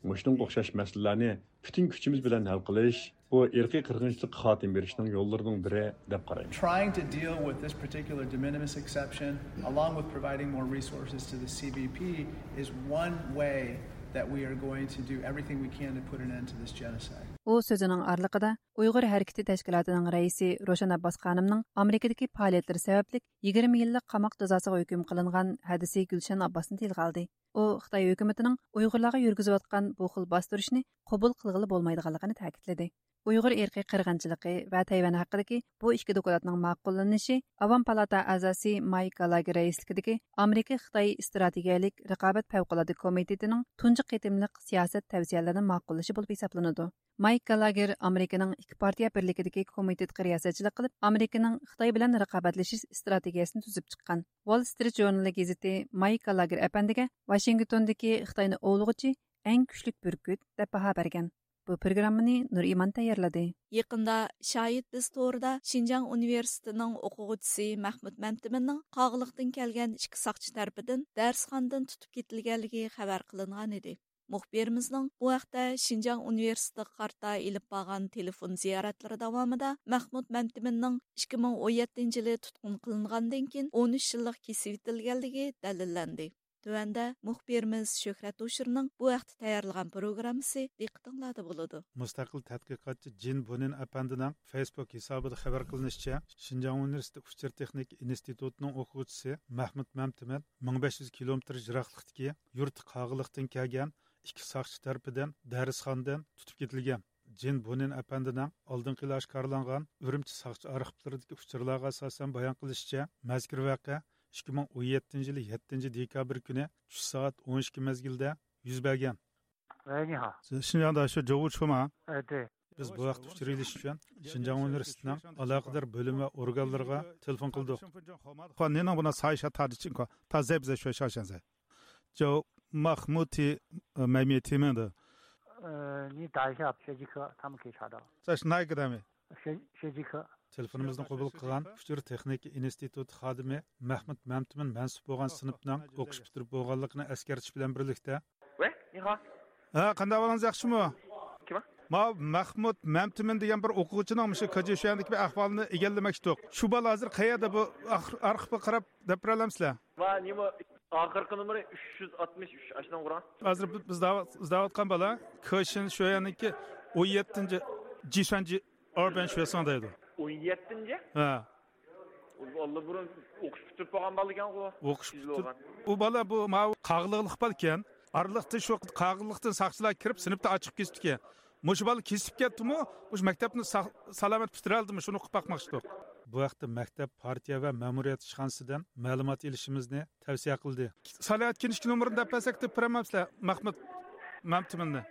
مۇشۇنىڭغا ئوخشاش مەسىلىلەرنى پۈتۈن كۈچىمىز بىلەن ھەل قىلىش، بۇ ئىرقىي قىرغىنچىلىققا خاتىمە بېرىشنىڭ يوللىرىنىڭ بىرى دەپ قارايمەن. Trying to deal with this particular de minimis exception, along with providing more resources to the C B P, is one way that we are going to do everything we can to put an end to this genocide. ئۇ سۆزىنىڭ ئارىلىقىدا ئۇيغۇر ھەرىكىتى تەشكىلاتىنىڭ رەئىسى روشەن ئابباس خانىمنىڭ ئامېرىكىدىكى پائالىيەتلىرى سەۋەبلىك يىگىرمە يىللىق قاماق جازاسىغا ھۆكۈم قىلىنغان ھەدىسى گۈلشەن ئابباسنى تىلغا ئالدى. ئۇ خىتاي ھۆكۈمىتىنىڭ ئۇيغۇرلارغا يۈرگۈزۈۋاتقان بۇ خىل باستۇرۇشنى قوبۇل قىلغىلى بولمايدىغانلىقىنى تەكىتلىدى. ئۇيغۇر ئىرقىي قىرغىنچىلىقى ۋە تەيۋەن ھەققىدىكى بۇ ئىككى دوكلاتنىڭ ماقۇللىنىشى ئاۋام پالاتا ئەزاسى مايك گالاگېر رەئىسلىكىدىكى ئامېرىكا خىتاي ئىستراتېگىيەلىك رىقابەت پەۋقۇلئاددە كومىتېتىنىڭ تۇنجى قېتىملىق سىياسەت تەۋسىيەلىرىنى ماقۇللىشى بولۇپ ھېسابلىنىدۇ. مايك گالاگېر ئامېرىكىنىڭ ئىككى پارتىيە بىرلىكىدىكى كومىتېتقا رىياسەتچىلىك قىلىپ، ئامېرىكىنىڭ خىتاي بىلەن رىقابەتلىشىش ئىستراتېگىيەسىنى تۈزۈپ چىققان. ۋال سترىت ژۇرنىلى گېزىتى مايك گالاگېر ئەپەندىگە ۋاشىنگتوندىكى خىتاينى ئوۋلىغۇچى ئەڭ كۈچلۈك بۈركۈت دەپ باھا بەرگەن. بۇ پروگراممىنى نۇرئىمان تەييارلىدى. يېقىندا شاھىت بىز تورىدا شىنجاڭ ئۇنىۋېرسىتېتىنىڭ ئوقۇغۇچىسى مەھمۇت مەمتىمىننىڭ قاغىلىقتىن كەلگەن ئىككى ساقچى تەرىپىدىن دەرسخانىدىن تۇتۇپ كېتىلگەنلىكى خەۋەر قىلىنغان ئىدى. مۇخبىرىمىزنىڭ بۇ ھەقتە شىنجاڭ ئۇنىۋېرسىتېتىغا قارىتا ئېلىپ بارغان تېلېفون زىيارەتلىرى داۋامىدا مەھمۇت مەمتىمىننىڭ ئىككى مىڭ ئون يەتتىنچى يىلى تۇتقۇن قىلىنغاندىن كېيىن ئون ئۈچ يىللىق كېسىۋېتىلگەنلىكى دەلىللەندى. تۆۋەندە مۇخبىرىمىز شۆھرەت ھوشۇرنىڭ بۇ ھەقتە تەييارلىغان پروگراممىسى دىققىتىڭلاردا بولىدۇ. مۇستەقىل تەتقىقاتچى جىن بۇنىن ئەپەندىنىڭ فېيسبۇك ھېسابىدا خەۋەر قىلىنىشىچە، شىنجاڭ ئۇنىۋېرسىتېتى ئۇچۇر تېخنىكا ئىنستىتۇتىنىڭ ئوقۇغۇچىسى مەھمۇت مەمتىمىن مىڭ بەش يۈز كىلومېتىر يىراقلىقتىكى يۇرتى قاغىلىقتىن كەلگەن ئىككى ساقچى تەرىپىدىن دەرسخانىدىن تۇتۇپ كېتىلگەن. جىن بۇنىن ئەپەندىنىڭ ئالدىنقى يىلى ئاشكارىلانغان ئۈرۈمچى ساقچى ئارخىپلىرىدىكى ئۇچۇرلارغا ئاساسەن بايان قىلىشىچە، مەزكۇر ۋەقە ئىككى مىڭ ئون يەتتىنچى يىلى يەتتىنچى دېكابىر كۈنى چۈش سائەت ئون ئىككى مەزگىلدە يۈز بەرگەن. 喂，你好。 شىنجاڭدا شۇ جوۋۇ چۇما؟ 哎，对。 بىز بۇ ھەقتە ئۇچۇر ئېلىش ئۈچۈن شىنجاڭ ئۇنىۋېرسىتېتىنىڭ ئالاقىدار بۆلۈم ۋە ئورگانلىرىغا تېلېفون قىلدۇق. 话您能不能查一下他的情况？他在不在学校现在？ 就马木提，呃，买面提名的。 呃，你打一下学籍科，他们可以查到。 在是哪一个单位？ 学，学籍科。 تېلېفونىمىزنى قوبۇل قىلغان ئۇچۇر تېخنىكا ئىنستىتۇتى خادىمى مەھمۇت مەمتىمىن مەنسۇپ بولغان سىنىپنىڭ ئوقۇش پۈتتۈرۈپ بولغانلىقىنى ئەسكەرتىش بىلەن بىرلىكتە، 喂，你好。 ھە، قانداق ئەھۋالىڭىز، ياخشىمۇ؟ 什么？ ماۋۇ مەھمۇت مەمتىمىن دېگەن بىر ئوقۇغۇچىنىڭ مۇشۇ كېچە شۇ يەردىكى بىر ئەھۋالنى ئىگىلىمەكچىدۇق. شۇ بالا ھازىر قەيەردە، بۇ ئارخىپقا قاراپ دەپ بېرەلەمسىلەر؟ ۋا نېمە، ئاخىرقى نومۇرى ئۈچ يۈز ئاتمىش ئۈچ، ئاشۇنىڭ ئۇرۇڭ. ھازىر بىز، بىز داۋا-، ئىزدەۋاتقان بالا كېشىن شۇ يەرنىڭكى ئون يەتتىنچى جىسۈەنجى ئاربەن شۇيساڭ دەيدۇ. ئون يەتتىنچى؟ ھە. ئۇ ئاللىبۇرۇن ئوقۇش پۈتتۈرۈپ بولغان بالا ئىكەنغۇ. ئوقۇش پۈتتۈر-، ئۇ بالا بۇ ماۋۇ قاغىلىقلىق بالىكەن. ئارىلىقتا شۇ قاغىلىقتىن ساقچىلار كىرىپ، سىنىپتا ئاچىقىپ كېتىپتىكەن. مۇشۇ بالا كېسىپ كەتتىمۇ، مۇشۇ مەكتەپنى سا-، سالامەت پۈتتۈرەلدىمۇ، شۇنى ئۇقۇپ باقماقچىدۇق. بۇ ھەقتە مەكتەپ، پارتىيە ۋە مەمۇرىيەت ئىشخانىسىدىن مەلۇمات ئېلىشىمىزنى تەۋسىيە قىلدى. سالامەت كىنىشكا نومۇرىنى دەپ بەرسەك، دەپ بېرەمسىلەر مەھمۇت مەمتىمىننى؟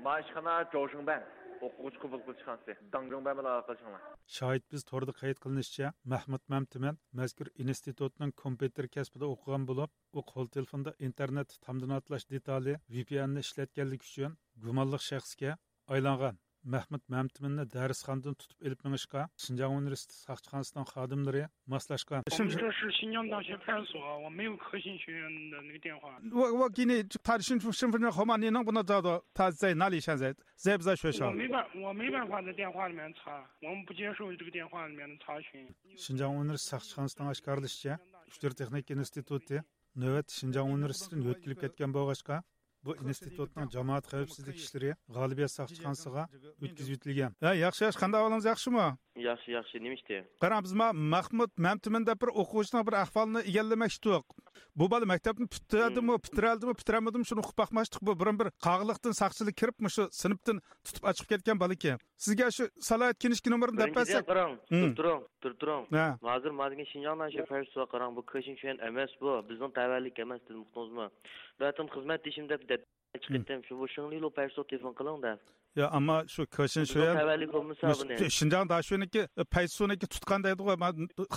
ما ئىشخانا جوشۇڭبەن ئوقۇغۇچى قوبۇل قىلىش خانىسى، داڭجۇڭبەن بىلەن ئالاقىلىشىڭلار. شاھىت بىز توردا قەيت قىلىنىشىچە، مەھمۇت مەمتىمىن مەزكۇر ئىنستىتۇتنىڭ كومپيۇتېر كەسپىدە ئوقۇغان بولۇپ، ئۇ قول تېلېفوندا ئىنتېرنېتتا تامدىن ئاتلاش دېتالى، ۋى پى ئېننى ئىشلەتكەنلىكى ئۈچۈن گۇمانلىق شەخسكە ئايلانغان. مەھمۇت مەمتىمىننى دەرسخانىدىن تۇتۇپ ئېلىپ مېڭىشقا شىنجاڭ ئۇنىۋېرسىتېتى ساقچىخانىسىنىڭ خادىملىرى ماسلاشقان. 我们这是新疆大学派出所，我没有科信学院的那个电话。我我给你，他是新新分的号码，你能不能找到他在哪里？现在在不在学校？我没办，我没办法在电话里面查，我们不接受这个电话里面的查询。 شىنجاڭ ئۇنىۋېرسىتېتى ساقچىخانىسىنىڭ ئاشكارىلىشىچە، ئۇچۇر تېخنىكا ئىنستىتۇتى نۆۋەتتە شىنجاڭ ئۇنىۋېرسىتېتىدىن يۆتكىلىپ كەتكەن بولغاچقا، بۇ ئىنستىتۇتنىڭ جامائەت خەۋپسىزلىك ئىشلىرى غالىبىيەت ساقچىخانىسىغا ئۆتكۈزۈۋېتىلگەن. ھە، ياخشى، ياخشى، قانداق ئەھۋالىڭىز، ياخشىمۇ؟ ياخشى، ياخشى، نېمە ئىشتى؟ قاراڭ، بىز ما مەھمۇت مەمتىمىن دەپ بىر ئوقۇغۇچىنىڭ بىر ئەھۋالىنى ئىگىلىمەكچىدۇق. بۇ بالا مەكتەپنى پۈتتۈردىمۇ، پۈتتۈرەلدىمۇ، پۈتتۈرەلمىدىمۇ، شۇنى ئۇقۇپ باقماقچىدۇق. بۇ بۇرۇن بىر قاغىلىقتىن ساقچىلار كىرىپ، مۇشۇ سىنىپتىن تۇتۇپ ئاچىقىپ كەتكەن بالا ئىكەن. سىزگە شۇ سالاھىيەت كىنىشكا نومۇرىنى دەپ بىرىنچىدىن، بەرسەك. قاراڭ، تۇرۇپ تۇرۇڭ، تۇرۇپ تۇرۇڭ. ھە. ھازىر ما دېگەن شىنجاڭ ناشىيە پەرسۇ قاراڭ، بۇ كېشىن شۈەن ئەمەس بۇ. بىزنىڭ تەۋەلىك ئەمەس، دېدىم، ئۇقتۇڭىزمۇ؟ بۇ ئەتىم خىزمەتدىشىم دەپ، دەپ چىقىپ كەتتىم. شۇ، بۇ شېڭلىلۇ پەرسۇ تېلېفون قىلىڭ دەپ. يا، ئەمما شۇ كېشىن بىزنىڭ شۈەن، تەۋەلىك بولمىسا بۇنى. شىنجاڭ داشۈنىڭكى، پەيتسۇنىڭكى تۇتقان دەيدىغۇ، ما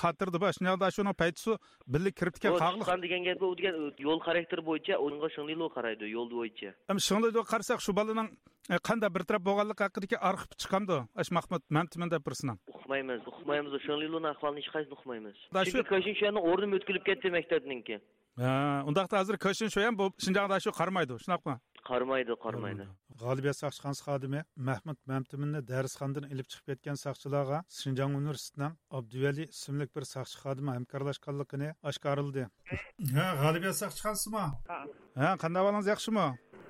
خاتىرىدە بار. شىنجاڭ داشۈنىڭ پەيتسۇ بىللە كىرىپتىكەن بۇ قاغىلىق. تۇتقان دېگەن گەپ، ئۇ دېگەن يول خاراكتېرى بويىچە، ئۇنىڭغا شېڭلىلۇ قارايدۇ، يول بويىچە. ئەمما شېڭلىلۇغا قارىساق، شۇ بالىنىڭ، ئە، قانداق بىر تەرەپ بولغانلىقى ھەققىدىكى ئارخىپ چىقامدۇ؟ ئاش مەھمۇت مەمتىمىن دەپ بىرسىنىڭ. ئۇقمايمىز، ئۇقمايمىز. شېڭلىلۇنىڭ ئەھۋالىنى ھېچقايسىمىز ئۇقمايمىز. دا شۇ چۈنكى كېشىن شۈەننىڭ ئورنىمۇ ئۆتكۈلۈپ كەتتى مەكتەپنىڭكى. ھە، ئۇنداقتا ھازىر كېشىن شۈەن بۇ شىنجاڭدا شۇ قارىمايدۇ، شۇنداقمۇ؟ قارىمايدۇ، قارىمايدۇ. غالىبىيەت ساقچىخانىسى خادىمى مەھمۇت مەمتىمىننى دەرسخانىدىن ئېلىپ چىقىپ كەتكەن ساقچىلارغا شىنجاڭ ئۇنىۋېرسىتېتىنىڭ ئابدۇۋەلى ئىسىملىك بىر ساقچى خادىمى ھەمكارلاشقانلىقىنى ئاشكارىلىدى. ھە، غالىبىيەت ساقچىخانىسىمۇ؟ ھە. ھە، قانداق ئەھۋالىڭىز، ياخشىمۇ؟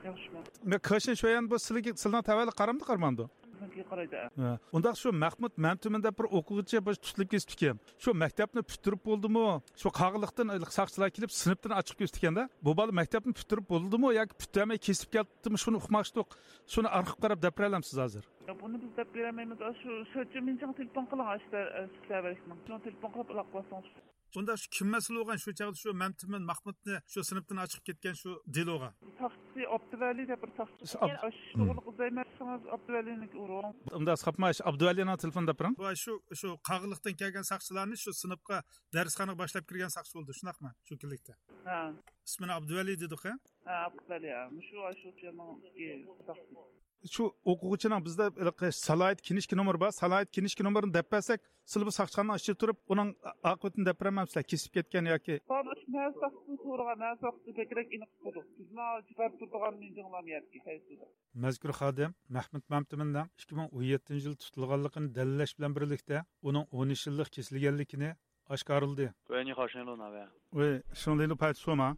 ياخشىمۇ. مەن كېشىن شۈەن بۇ سىلىگە، سىلىنىڭ تەۋەلىك قارامدۇ، قارىمامدۇ؟ بىزنىڭكىگە قارايدۇ. ھە. ئۇنداق شۇ مەھمۇت مەمتىمىن دەپ بىر ئوقۇغۇچى بىر تۇتۇلۇپ كېتىپتىكەن. شۇ مەكتەپنى پۈتتۈرۈپ بولدىمۇ؟ شۇ قاغىلىقتىن ساقچىلار كېلىپ سىنىپتىن ئاچىقىپ كېتىپتىكەن-دە. بۇ بالا مەكتەپنى پۈتتۈرۈپ بولدىمۇ ياكى پۈتتۈرمەي كېسىپ كەتتىمۇ؟ شۇنى ئۇقماقچىدۇق. شۇنى ئارخىپ قاراپ دەپ بېرەلەمسىز ھازىر؟ يا، بۇنى بىز دەپ بېرەلمەيمىز. شۇ، شۇ چىمىنچىڭ تېلېفون قىلىڭ، ئاشتا، ئە، سىلەر بەرسىڭ. شۇنىڭ تېلېفون قىلىپ ئالاقىلاشسىڭىز. ئۇندا شۇ كىم مەسئۇل بولغان شۇ چاغدا شۇ مەمتىمىن مەھمۇتنى شۇ سىنىپتىن ئاچىقىپ كەتكەن شۇ دېلوغا؟ ساقچى ئابدۇۋەلى دەپ بىر ساقچى. شۇ ئاب-، شۇغۇرلۇق ئىزدەيمەن دېسىڭىز، ئابدۇۋەلىنىڭكىگە ئۇرۇڭ. ئۇنداق ساپما، شۇ ئابدۇۋەلىنىڭ تېلېفونىنى دەپ بېرىڭ. ۋاي، شۇ، شۇ قاغىلىقتىن كەلگەن ساقچىلارنى شۇ سىنىپقا، دەرسخانىغا باشلاپ كىرگەن ساقچى بولدى، شۇنداقمۇ؟ شۇ كۈنلۈكتە. ھە. ئىسمىنى ئابدۇۋەلى دېدۇق، ھە؟ ھە، ئابدۇۋەلى، ھە. مۇشۇ، شۇ يەرنىڭ ئىككى ساقچىسى. شۇ ئوقۇغۇچىنىڭ بىزدە ھېلىقى سالاھىيەت كىنىشكا نومۇرى بار. سالاھىيەت كىنىشكا نومۇرىنى دەپ بەرسەك، سىلى بۇ ساقچىخانىنىڭ ئىچىدە تۇرۇپ، ئۇنىڭ ئاقىۋىتىنى دەپ بېرەلمەمسىلەر، كېسىپ كەتكەن ياكى؟ بۇ مەھەللە ساقچىسىنى سورىغان، مەھەللە ساقچىسى بەكرەك ئېنىق ئۇقىدۇ. بىزمۇ جىپەر تۇرىدىغان مىنجىڭلام يەتكى قايسىدا. مەزكۇر خادىم مەھمۇت مەمتىمىننىڭ ئىككى مىڭ ئون يەتتىنچى يىلى تۇتۇلغانلىقىنى دەلىللەش بىلەن بىرلىكتە، ئۇنىڭ ئون ئۈچ يىللىق كېسىلگەنلىكىنى ئاشكارىلىدى. 喂，你好，是内陆哪位？喂，是内陆派出所吗？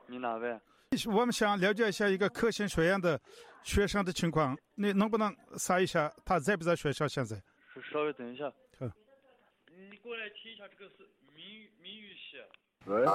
你哪位？我们想了解一下一个克星学院的学生的情况，你能不能查一下他在不在学校现在？稍稍微等一下。好。你过来听一下这个是谜语，谜语是。喂。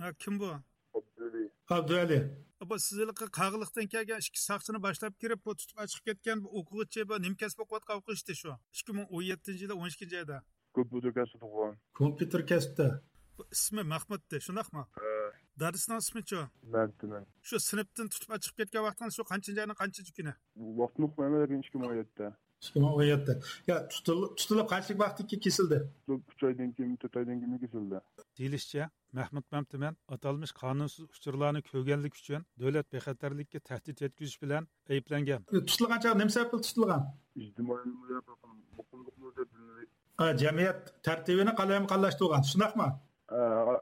ھە، كىم بۇ؟ ئابدۇۋەلى. ئابدۇۋەلى. بۇ سىز ھېلىقى قاغىلىقتىن كەلگەن ئىككى ساقچىنى باشلاپ كىرىپ، بۇ تۇتۇپ ئاچىقىپ كەتكەن بۇ ئوقۇغۇچى، بۇ نېمە كەسىپ ئوقۇۋاتقان ئوقۇغۇچى شۇ؟ ئىككى مىڭ ئون يەتتىنچى يىلى ئون ئىككىنچى ئايدا. كومپيۇتېر كەسپىدە. كومپيۇتېر كەسپىدە. بۇ ئىسمى مەھمۇتتى، شۇنداقمۇ؟ ھە. دادىسىنىڭ ئىسمىچۇ؟ مەمتىمىن. شۇ سىنىپتىن تۇتۇپ ئاچىقىپ كەتكەن ۋاقتىڭىز شۇ قانچىنچى ئاينىڭ قانچىنچى كۈنى؟ ۋاقتىنى ئۇقمايمەن، لېكىن ئىككى مىڭ ئون يەتتە. ئىككى مىڭ ئون يەتتە. يا، تۇتۇل-، تۇتۇلۇپ قانچىلىك ۋاقىتتىن كېيىن كېسىلدى؟ ئىككى ئاي، ئۈچ ئايدىن كېيىن، تۆت ئايدىن كېيىن كېسىلدى. دېيىلىشىچە، مەھمۇت مەمتىمىن ئاتالمىش قانۇنسىز ئۇچۇرلارنى كۆرگەنلىكى ئۈچۈن دۆلەت بىخەتەرلىكىگە تەھدىت يەتكۈزۈش بىلەن ئەيىبلەنگەن. تۇتۇلغان چاغ نېمە سەۋەب بىلەن تۇتۇلغان؟ ئىجتىمائىي مۇقىملىقنى دەپ بىلىنىدۇ. ئا، جەمئىيەت تەرتىپىنى قالايمىقانلاشتۇرغان، شۇنداقمۇ؟ ئا،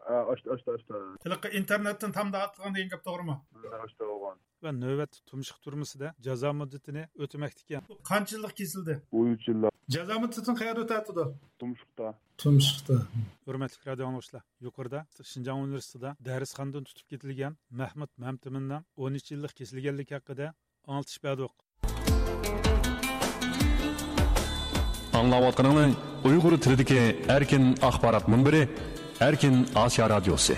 ئا، ئاشتا، ئاشتا، ئاشتا. ھېلىقى ئىنتېرنېتتىن تامدا ئاتلىغان دېگەن گەپ توغرىمۇ؟ ئاشتا بولغان. ۋە نۆۋەتتە تۇمشۇق تۈرمىسىدە جازا مۇددىتىنى ئۆتىمەكتىكەن. قانچە يىللىق كېسىلدى؟ ئون ئۈچ يىللىق. جازا مۇددىتىنى قەيەردە ئۆتەتتى؟ تۇمشۇقتا. تۇمشۇقتا. ھۆرمەتلىك رادىئو ئاڭلىغۇچىلار، يۇقىرىدا شىنجاڭ ئۇنىۋېرسىتېتىدا دەرسخانىدىن تۇتۇپ كېتىلگەن مەھمۇت مەمتىمىننىڭ ئون ئۈچ يىللىق كېسىلگەنلىكى ھەققىدە ئاڭلىتىش بەردۇق. ئاڭلاۋاتقىنىڭلار ئۇيغۇر تىلىدىكى ئەركىن ئاخبارات مۇنبىرى، ئەركىن ئاسىيا رادىيوسى.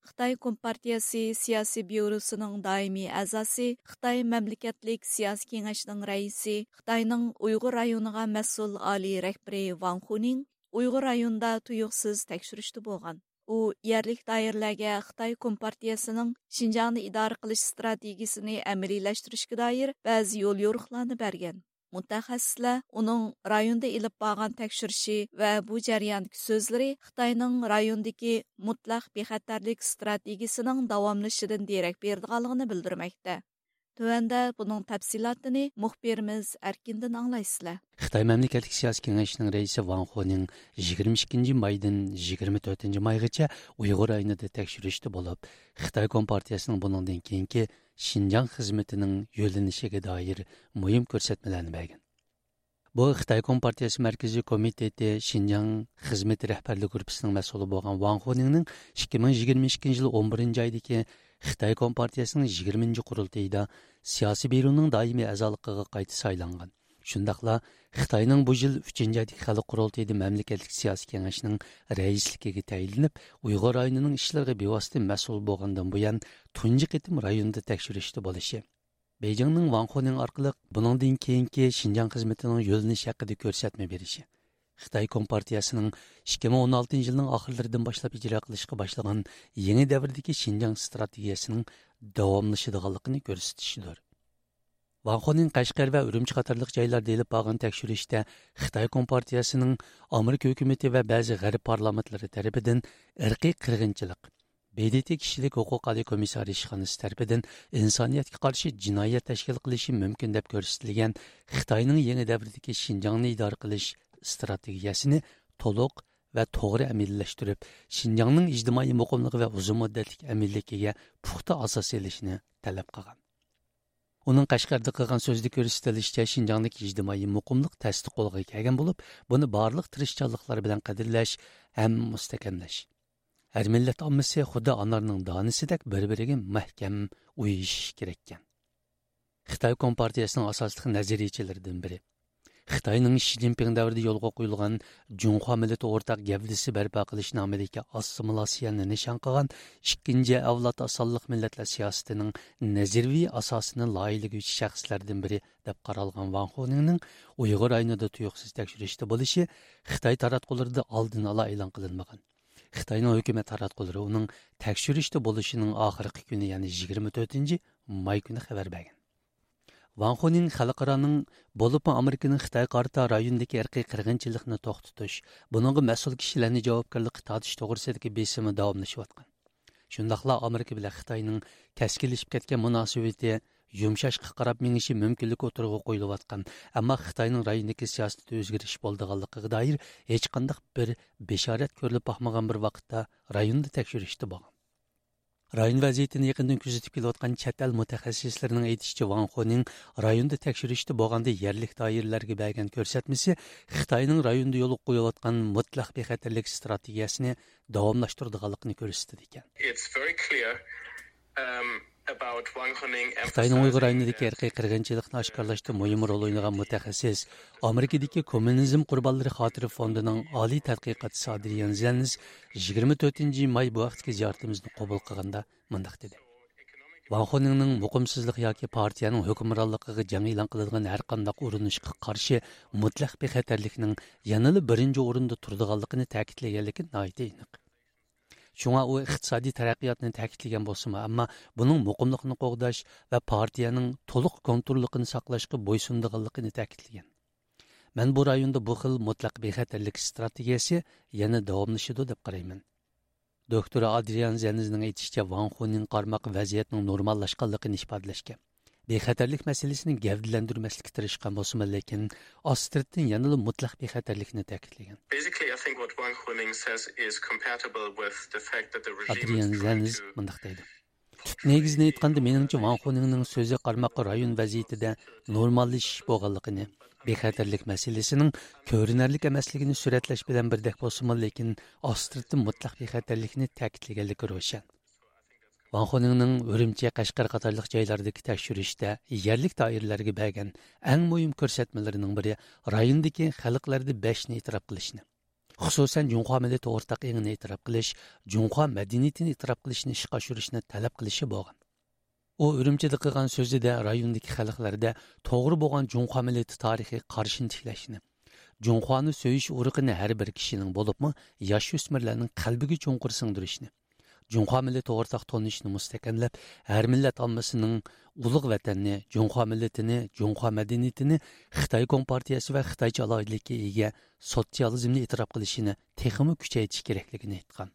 خىتاي كومپارتىيەسى سىياسىي بيۇروسىنىڭ دائىمىي ئەزاسى، خىتاي مەملىكەتلىك سىياسىي كېڭەشنىڭ رەئىسى، خىتاينىڭ ئۇيغۇر رايونىغا مەسئۇل ئالىي رەھبىرى ۋاڭ خۇنىڭ ئۇيغۇر رايونىدا تۇيۇقسىز تەكشۈرۈشتە بولغان. ئۇ يەرلىك دائىرىلەرگە خىتاي كومپارتىيەسىنىڭ شىنجاڭنى ئىدارە قىلىش ئىستراتېگىيىسىنى ئەمەلىيلەشتۈرۈشكە دائىر بەزى يوليورۇقلارنى بەرگەن. مۇتەخەسسىسلەر ئۇنىڭ رايوندا ئېلىپ بارغان تەكشۈرۈشى ۋە بۇ جەرياندىكى سۆزلىرى خىتاينىڭ رايوندىكى مۇتلەق بىخەتەرلىك ئىستراتېگىيىسىنىڭ داۋاملىشىشىدىن دېرەك بېرىدىغانلىقىنى بىلدۈرمەكتە. تۆۋەندە بۇنىڭ تەپسىلاتىنى مۇخبىرىمىز ئەركىندىن ئاڭلايسىلەر. خىتاي مەملىكەتلىك سىياسىي كېڭەشنىڭ رەئىسى ۋاڭ خونىڭ يىگىرمە ئىككىنچى مايدىن يىگىرمە تۆتىنچى مايغىچە ئۇيغۇر رايونىدا تەكشۈرۈشتە بولۇپ، خىتاي كومپارتىيەسىنىڭ بۇنىڭدىن كېيىنكى شىنجاڭ خىزمىتىنىڭ يۆنىلىشىگە دائىر مۇھىم كۆرسەتمىلەرنى بەرگەن. بۇ خىتاي كومپارتىيەسى مەركىزىي كومىتېتى شىنجاڭ خىزمىتى رەھبەرلىك گۇرۇپپىسىنىڭ مەسئۇلى بولغان ۋاڭ خونىڭنىڭ ئىككى مىڭ يىگىرمە ئىككىنچى يىل ئون بىرىنچى ئايدىكى خىتاي كومپارتىيەسىنىڭ يىگىرمىنچى قۇرۇلتىيىدا سىياسىي بيۇرونىڭ دائىمىي ئەزالىقىغا قايتا سايلانغان. شۇنداقلا خىتاينىڭ بۇ يىل ئۈچىنچى ئايدىكى خەلق قۇرۇلتىيىدا مەملىكەتلىك سىياسىي كېڭەشنىڭ رەئىسلىكىگە تەيىنلىنىپ، ئۇيغۇر رايونىنىڭ ئىشلىرىغا بىۋاسىتە مەسئۇل بولغاندىن بۇيان تۇنجى قېتىم رايوندا تەكشۈرۈشتە بولۇشى، بېيجىڭنىڭ ۋاڭ خونىڭ ئارقىلىق بۇنىڭدىن كېيىنكى شىنجاڭ خىزمىتىنىڭ يۆنىلىشى ھەققىدە كۆرسەتمە بېرىشى، خىتاي كومپارتىيەسىنىڭ ئىككى مىڭ ئون ئالتىنچى يىلنىڭ ئاخىرلىرىدىن باشلاپ ئىجرا قىلىشقا باشلىغان يېڭى دەۋردىكى شىنجاڭ ئىستراتېگىيەسىنىڭ داۋاملىشىدىغانلىقىنى كۆرسىتىشىدۇر. ۋاڭ خونىڭ قەشقەر ۋە ئۈرۈمچى قاتارلىق جايلاردا ئېلىپ بارغان تەكشۈرۈشتە خىتاي كومپارتىيەسىنىڭ ئامېرىكا ھۆكۈمىتى ۋە بەزى غەرب پارلامېنتلىرى تەرىپىدىن ئىرقىي قىرغىنچىلىق، ب د ت كىشىلىك ھوقۇق ئالىي كومىسسارى ئىشخانىسى تەرىپىدىن ئىنسانىيەتكە قارشى جىنايەت تەشكىل قىلىشى مۇمكىن دەپ كۆرسىتىلگەن خىتاينىڭ يېڭى دەۋردىكى شىنجاڭنى ئىدارە قىلىش ئىستراتېگىيەسىنى تولۇق ۋە توغرا ئەمەلىيلەشتۈرۈپ، شىنجاڭنىڭ ئىجتىمائىي مۇقىملىقى ۋە ئۇزۇن مۇددەتلىك ئەمىنلىكىگە پۇختا ئاساس سېلىشنى تەلەپ قىلغان. ئۇنىڭ قەشقەردە قىلغان سۆزىدە كۆرسىتىلىشىچە، شىنجاڭدىكى ئىجتىمائىي مۇقىملىق تەستە قولغا كەلگەن بولۇپ، بۇنى بارلىق تىرىشچانلىقلار بىلەن قەدىرلەش ھەم مۇستەھكەملەش. ھەر مىللەت ئاممىسى خۇددى ئانارنىڭ دانىسىدەك بىر-بىرىگە مەھكەم ئۇيۇشۇشى كېرەككەن. خىتاي كومپارتىيەسىنىڭ ئاساسلىق نەزەرىيىچىلىرىدىن بىرى، خىتاينىڭ شى جىنپىڭ دەۋرىدە يولغا قويۇلغان جۇڭخۇا مىللىتى ئورتاق گەۋدىسى بەرپا قىلىش نامىدىكى ئاسسىمىلاتسىيەنى نىشان قىلغان ئىككىنچى ئەۋلاد ئاز سانلىق مىللەتلەر سىياسىتىنىڭ نەزەرىيىۋى ئاساسىنى لايىھىلىگۈچى شەخسلەردىن بىرى دەپ قارالغان ۋاڭ خونىڭنىڭ ئۇيغۇر رايونىدا تۇيۇقسىز تەكشۈرۈشتە بولۇشى خىتاي تاراتقۇلىرىدا ئالدىن ئالا ئېلان قىلىنمىغان. خىتاينىڭ ھۆكۈمەت تاراتقۇلىرى ئۇنىڭ تەكشۈرۈشتە بولۇشىنىڭ ئاخىرقى كۈنى، يەنى يىگىرمە تۆتىنچى ماي كۈنى خەۋەر بەرگەن. ۋاڭ خونىڭ خەلقئارانىڭ، بولۇپمۇ ئامېرىكىنىڭ خىتايغا قارىتا رايوندىكى ئىرقىي قىرغىنچىلىقنى توختىتىش، بۇنىڭغا مەسئۇل كىشىلەرنى جاۋابكارلىققا تارتىش توغرىسىدىكى بېسىمى داۋاملىشىۋاتقان. شۇنداقلا ئامېرىكا بىلەن خىتاينىڭ كەسكىنلىشىپ كەتكەن مۇناسىۋىتى يۇمشاشقا قاراپ مېڭىشى مۇمكىنلىكى ئوتتۇرىغا قويۇلۇۋاتقان، ئەمما خىتاينىڭ رايوندىكى سىياسىتىدە ئۆزگىرىش بولىدىغانلىقىغا دائىر ھېچقانداق بىر بېشارەت كۆرۈلۈپ باقمىغان بىر ۋاقىتتا رايوندا تەكشۈرۈشتە بولغان. رايون ۋەزىيىتىنى يېقىندىن كۆزىتىپ كېلىۋاتقان چەت ئەل مۇتەخەسسىسلىرىنىڭ ئېيتىشىچە، ۋاڭ خونىڭ رايوندا تەكشۈرۈشتە بولغاندا يەرلىك دائىرىلەرگە بەرگەن كۆرسەتمىسى خىتاينىڭ رايوندا يولغا قويۇۋاتقان مۇتلەق بىخەتەرلىك ئىستراتېگىيەسىنى داۋاملاشتۇرىدىغانلىقىنى كۆرسىتىدىكەن. It's very clear, um, about Wang Huning خىتاينىڭ ئۇيغۇر emphasizing رايونىدىكى that ئىرقىي قىرغىنچىلىقنى ئاشكارىلاشتا مۇھىم رول ئوينىغان مۇتەخەسسىس، ئامېرىكىدىكى كوممۇنىزم قۇربانلىرى خاتىرە فوندىنىڭ ئالىي تەتقىقاتچىسى ئادرىيان زېنز يىگىرمە تۆتىنچى ماي بۇ ھەقتىكى زىيارىتىمىزنى قوبۇل قىلغاندا مۇنداق دېدى: ۋاڭ خونىڭنىڭ مۇقىمسىزلىق ياكى پارتىيەنىڭ ھۆكۈمرانلىقىغا جەڭ ئېلان قىلىدىغان ھەرقانداق ئۇرۇنۇشقا قارشى مۇتلەق بىخەتەرلىكنىڭ يەنىلا بىرىنچى ئورۇندا تۇرىدىغانلىقىنى تەكىتلىگەنلىكى ناھايىتى ئېنىق. شۇڭا ئۇ ئىقتىسادىي تەرەققىياتنى تەكىتلىگەن بولسىمۇ، ئەمما بۇنىڭ مۇقىملىقنى قوغداش ۋە پارتىيەنىڭ تولۇق كونتروللۇقىنى ساقلاشقا بويسۇنىدىغانلىقىنى تەكىتلىگەن. مەن بۇ رايوندا بۇ خىل مۇتلەق بىخەتەرلىك ئىستراتېگىيەسى يەنە داۋاملىشىدۇ دەپ قارايمەن. دوكتور ئادرىيان زېنزنىڭ ئېيتىشىچە، ۋاڭ خۇنىڭ قارىماققا ۋەزىيەتنىڭ نورماللاشقانلىقىنى ئىپادىلەشكە، بىخەتەرلىك مەسىلىسىنى گەۋدىلەندۈرمەسلىككە تىرىشقان بولسىمۇ، لېكىن ئاستىرتىن يەنىلا مۇتلەق بىخەتەرلىكنى تەكىتلىگەن. Basically, I think what Wang Huning says is compatible with the fact that the regime ئادرىيان is trying زېنز to مۇنداق دەيدۇ: تۈپ نېگىزىنى ئېيتقاندا، مېنىڭچە، ۋاڭ خۇنىڭنىڭ سۆزى قارىماققا رايون ۋەزىيىتىدە نورماللىشىش بولغانلىقىنى، بىخەتەرلىك مەسىلىسىنىڭ كۆرۈنەرلىك ئەمەسلىكىنى سۈرەتلەش بىلەن بىردەك بولسىمۇ، لېكىن ئاستىرتىن مۇتلەق بىخەتەرلىكنى تەكىتلىگەنلىكى روشەن. ۋاڭ خۇنىڭنىڭ ئۈرۈمچى، قەشقەر قاتارلىق جايلاردىكى تەكشۈرۈشتە يەرلىك دائىرىلەرگە بەرگەن ئەڭ مۇھىم كۆرسەتمىلىرىنىڭ بىرى رايوندىكى خەلقلەردە بەشنى ئېتىراپ قىلىشنى، خۇسۇسەن، جۇڭخۇا مىللىتى ئورتاق ئېڭىنى ئېتىراپ قىلىش، جۇڭخۇا مەدەنىيىتىنى ئېتىراپ قىلىشنى ئىشقا ئاشۇرۇشنى تەلەپ قىلىشى بولغان. ئۇ ئۈرۈمچىدە قىلغان سۆزىدە رايوندىكى خەلقلەردە توغرا بولغان جۇڭخۇا مىللىتى تارىخىي قارىشىنى تىكلەشنى، جۇڭخۇانى سۆيۈش ئۇرۇقىنى ھەر بىر كىشىنىڭ، بولۇپمۇ ياش ئۆسمۈرلەرنىڭ قەلبىگە چوڭقۇر سىڭدۈرۈشنى، جۇڭخۇا مىللىتى ئورتاق تونۇشىنى مۇستەھكەملەپ، ھەر مىللەت ئاممىسىنىڭ ئۇلۇغ ۋەتەننى، جۇڭخۇا مىللىتىنى، جۇڭخۇا مەدەنىيىتىنى، خىتاي كومپارتىيەسى ۋە خىتايچە ئالاھىدىلىككە ئىگە سوتسىيالىزمنى ئېتىراپ قىلىشىنى تېخىمۇ كۈچەيتىش كېرەكلىكىنى ئېيتقان.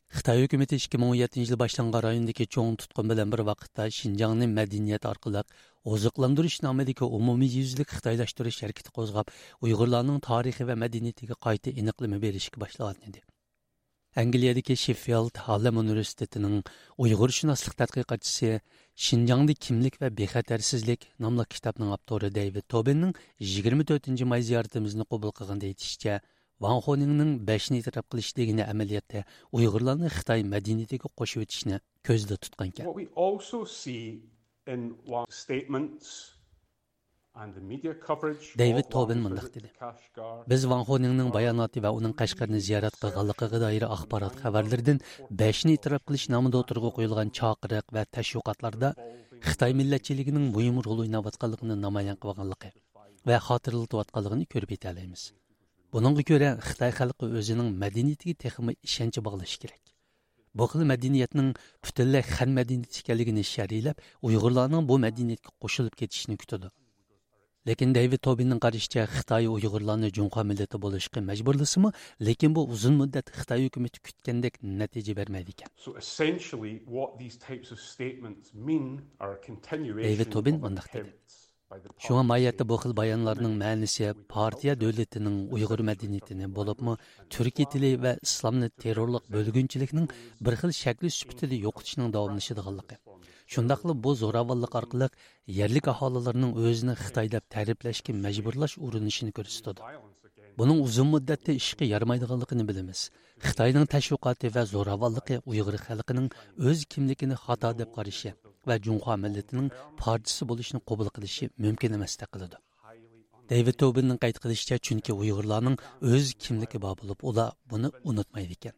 خىتاي ھۆكۈمىتى ئىككى مىڭ ئون يەتتىنچى يىلى باشلانغان رايوندىكى چوڭ تۇتقۇن بىلەن بىر ۋاقىتتا شىنجاڭنى مەدەنىيەت ئارقىلىق ئوزۇقلاندۇرۇش نامىدىكى ئومۇميۈزلۈك خىتايلاشتۇرۇش ھەرىكىتى قوزغاپ، ئۇيغۇرلارنىڭ تارىخى ۋە مەدەنىيىتىگە قايتا ئېنىقلىما بېرىشكە باشلىغان ئىدى. ئەنگلىيەدىكى شېففىلد ھارلېم ئۇنىۋېرسىتېتىنىڭ ئۇيغۇرشۇناسلىق تەتقىقاتچىسى، شىنجاڭدا كىملىك ۋە بىخەتەرسىزلىك ناملىق كىتابنىڭ ئاپتورى دېۋىد توبىننىڭ يىگىرمە تۆتىنچى ماي زىيارىتىمىزنى قوبۇل قىلغاندا ئېيتىشىچە، ۋاڭ خونىڭنىڭ بەشنى ئېتىراپ قىلىش دېگىنى ئەمەلىيەتتە ئۇيغۇرلارنى خىتاي مەدەنىيىتىگە قوشۇۋېتىشنى كۆزدە تۇتقانىكەن. What we also see in Wang's statements and the media coverage دېۋىد of توبىن Wang's مۇنداق visit دېدى: to Kashgar بىز ۋاڭ خونىڭنىڭ باياناتى ۋە ئۇنىڭ قەشقەرنى زىيارەت قىلغانلىقىغا دائىر ئاخبارات خەۋەرلىرىدىن بەشنى ئېتىراپ قىلىش نامىدا ئوتتۇرىغا قويۇلغان چاقىرىق ۋە تەشۋىقاتلاردا خىتاي مىللەتچىلىكىنىڭ مۇھىم رول ئويناۋاتقانلىقىنى نامايان قىلغانلىقى ۋە خاتىرىلىتىۋاتقانلىقىنى كۆرۈپ يېتەلەيمىز. بۇنىڭغا كۆرە، خىتاي خەلقى ئۆزىنىڭ مەدەنىيىتىگە تېخىمۇ ئىشەنچ باغلىشى كېرەك. بۇ خىل مەدەنىيەتنىڭ پۈتۈنلەي خەن مەدەنىيىتى ئىكەنلىكىنى شەرھلەپ، ئۇيغۇرلارنىڭ بۇ مەدەنىيەتكە قوشۇلۇپ كېتىشىنى كۈتىدۇ. لېكىن دېۋىد توبىننىڭ قارىشىچە، خىتاي ئۇيغۇرلارنى جۇڭخۇا مىللىتى بولۇشقا مەجبۇرلىسىمۇ، لېكىن بۇ ئۇزۇن مۇددەت خىتاي ھۆكۈمىتى كۈتكەندەك نەتىجە بەرمەيدىكەن. So essentially, what these types of statements mean are a continuation دېۋىد توبىن of مۇنداق دېدى. Attempts شۇڭا ماھىيەتتە بۇ خىل بايانلارنىڭ مەنىسى پارتىيە دۆلىتىنىڭ ئۇيغۇر مەدەنىيىتىنى، بولۇپمۇ تۈركىي تىلى ۋە ئىسلامنى تېررورلۇق بۆلگۈنچىلىكنىڭ بىر خىل شەكلى سۈپىتىدە يوقىتىشنىڭ داۋاملىشىدىغانلىقى، شۇنداقلا بۇ زوراۋانلىق ئارقىلىق يەرلىك ئاھالىلەرنىڭ ئۆزىنى خىتاي دەپ تەرىپلەشكە مەجبۇرلاش ئۇرۇنۇشىنى كۆرسىتىدۇ. بۇنىڭ ئۇزۇن مۇددەتتە ئىشقا يارىمايدىغانلىقىنى بىلىمىز. خىتاينىڭ تەشۋىقاتى ۋە زوراۋانلىقى ئۇيغۇر خەلقىنىڭ ئۆز كىملىكىنى خاتا دەپ قارىشى ۋە جۇڭخۇا مىللىتىنىڭ پارچىسى بولۇشىنى قوبۇل قىلىشى مۇمكىن ئەمەستەك قىلىدۇ. دېۋىد توبىننىڭ قەيت قىلىشىچە، چۈنكى ئۇيغۇرلارنىڭ ئۆز كىملىكى بار بولۇپ، ئۇلار بۇنى ئۇنتۇمايدىكەن.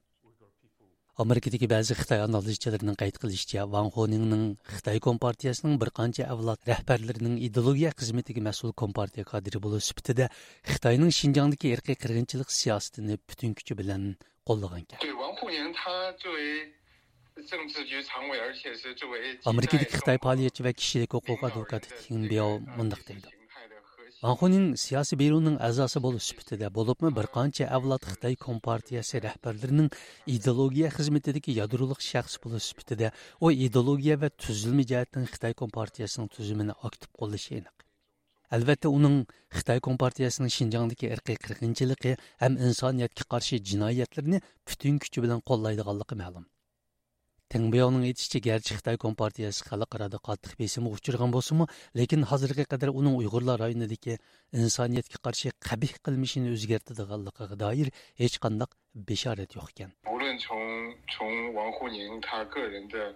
ئامېرىكىدىكى بەزى خىتاي ئانالىزچىلىرىنىڭ قەيت قىلىشىچە، ۋاڭ خونىڭنىڭ خىتاي كومپارتىيەسىنىڭ بىر قانچە ئەۋلاد رەھبەرلىرىنىڭ ئىدېئولوگىيە خىزمىتىگە مەسئۇل كومپارتىيە كادىرى بولۇش سۈپىتىدە خىتاينىڭ شىنجاڭدىكى ئىرقىي قىرغىنچىلىق سىياسىتىنى پۈتۈن كۈچى بىلەن قوللىغانىكەن. 对， ۋاڭ خونىڭ 他作为政治局常委，而且是作为 ئامېرىكىدىكى خىتاي پائالىيەتچى ۋە كىشىلىك ھوقۇق ئادۋوكاتى تىڭ بياۋ مۇنداق دەيدۇ: ۋاڭ خونىڭ سىياسىي بيۇرونىڭ ئەزاسى بولۇش سۈپىتىدە، بولۇپمۇ بىر قانچە ئەۋلاد خىتاي كومپارتىيەسى رەھبەرلىرىنىڭ ئىدېئولوگىيە خىزمىتىدىكى يادرولۇق شەخس بولۇش سۈپىتىدە، ئۇ ئىدېئولوگىيە ۋە تۈزۈلمە جەھەتتىن خىتاي كومپارتىيەسىنىڭ تۈزۈمىنى ئاكتىپ قوللىشى ئېنىق. ئەلۋەتتە، ئۇنىڭ خىتاي كومپارتىيەسىنىڭ شىنجاڭدىكى ئىرقىي قىرغىنچىلىقى ھەم ئىنسانىيەتكە قارشى جىنايەتلىرىنى پۈتۈن كۈچى بىلەن قوللايدىغانلىقى مەلۇم. تېڭ بياۋنىڭ ئېيتىشىچە، گەرچە خىتاي كومپارتىيەسى خەلقئارادا قاتتىق بېسىمغا ئۇچرىغان بولسىمۇ، لېكىن ھازىرغا قەدەر ئۇنىڭ ئۇيغۇرلار رايونىدىكى ئىنسانىيەتكە قارشى قەبىھ قىلمىشىنى ئۆزگەرتىدىغانلىقىغا دائىر ھېچقانداق بېشارەت يوقكەن. 无论从从王沪宁他个人的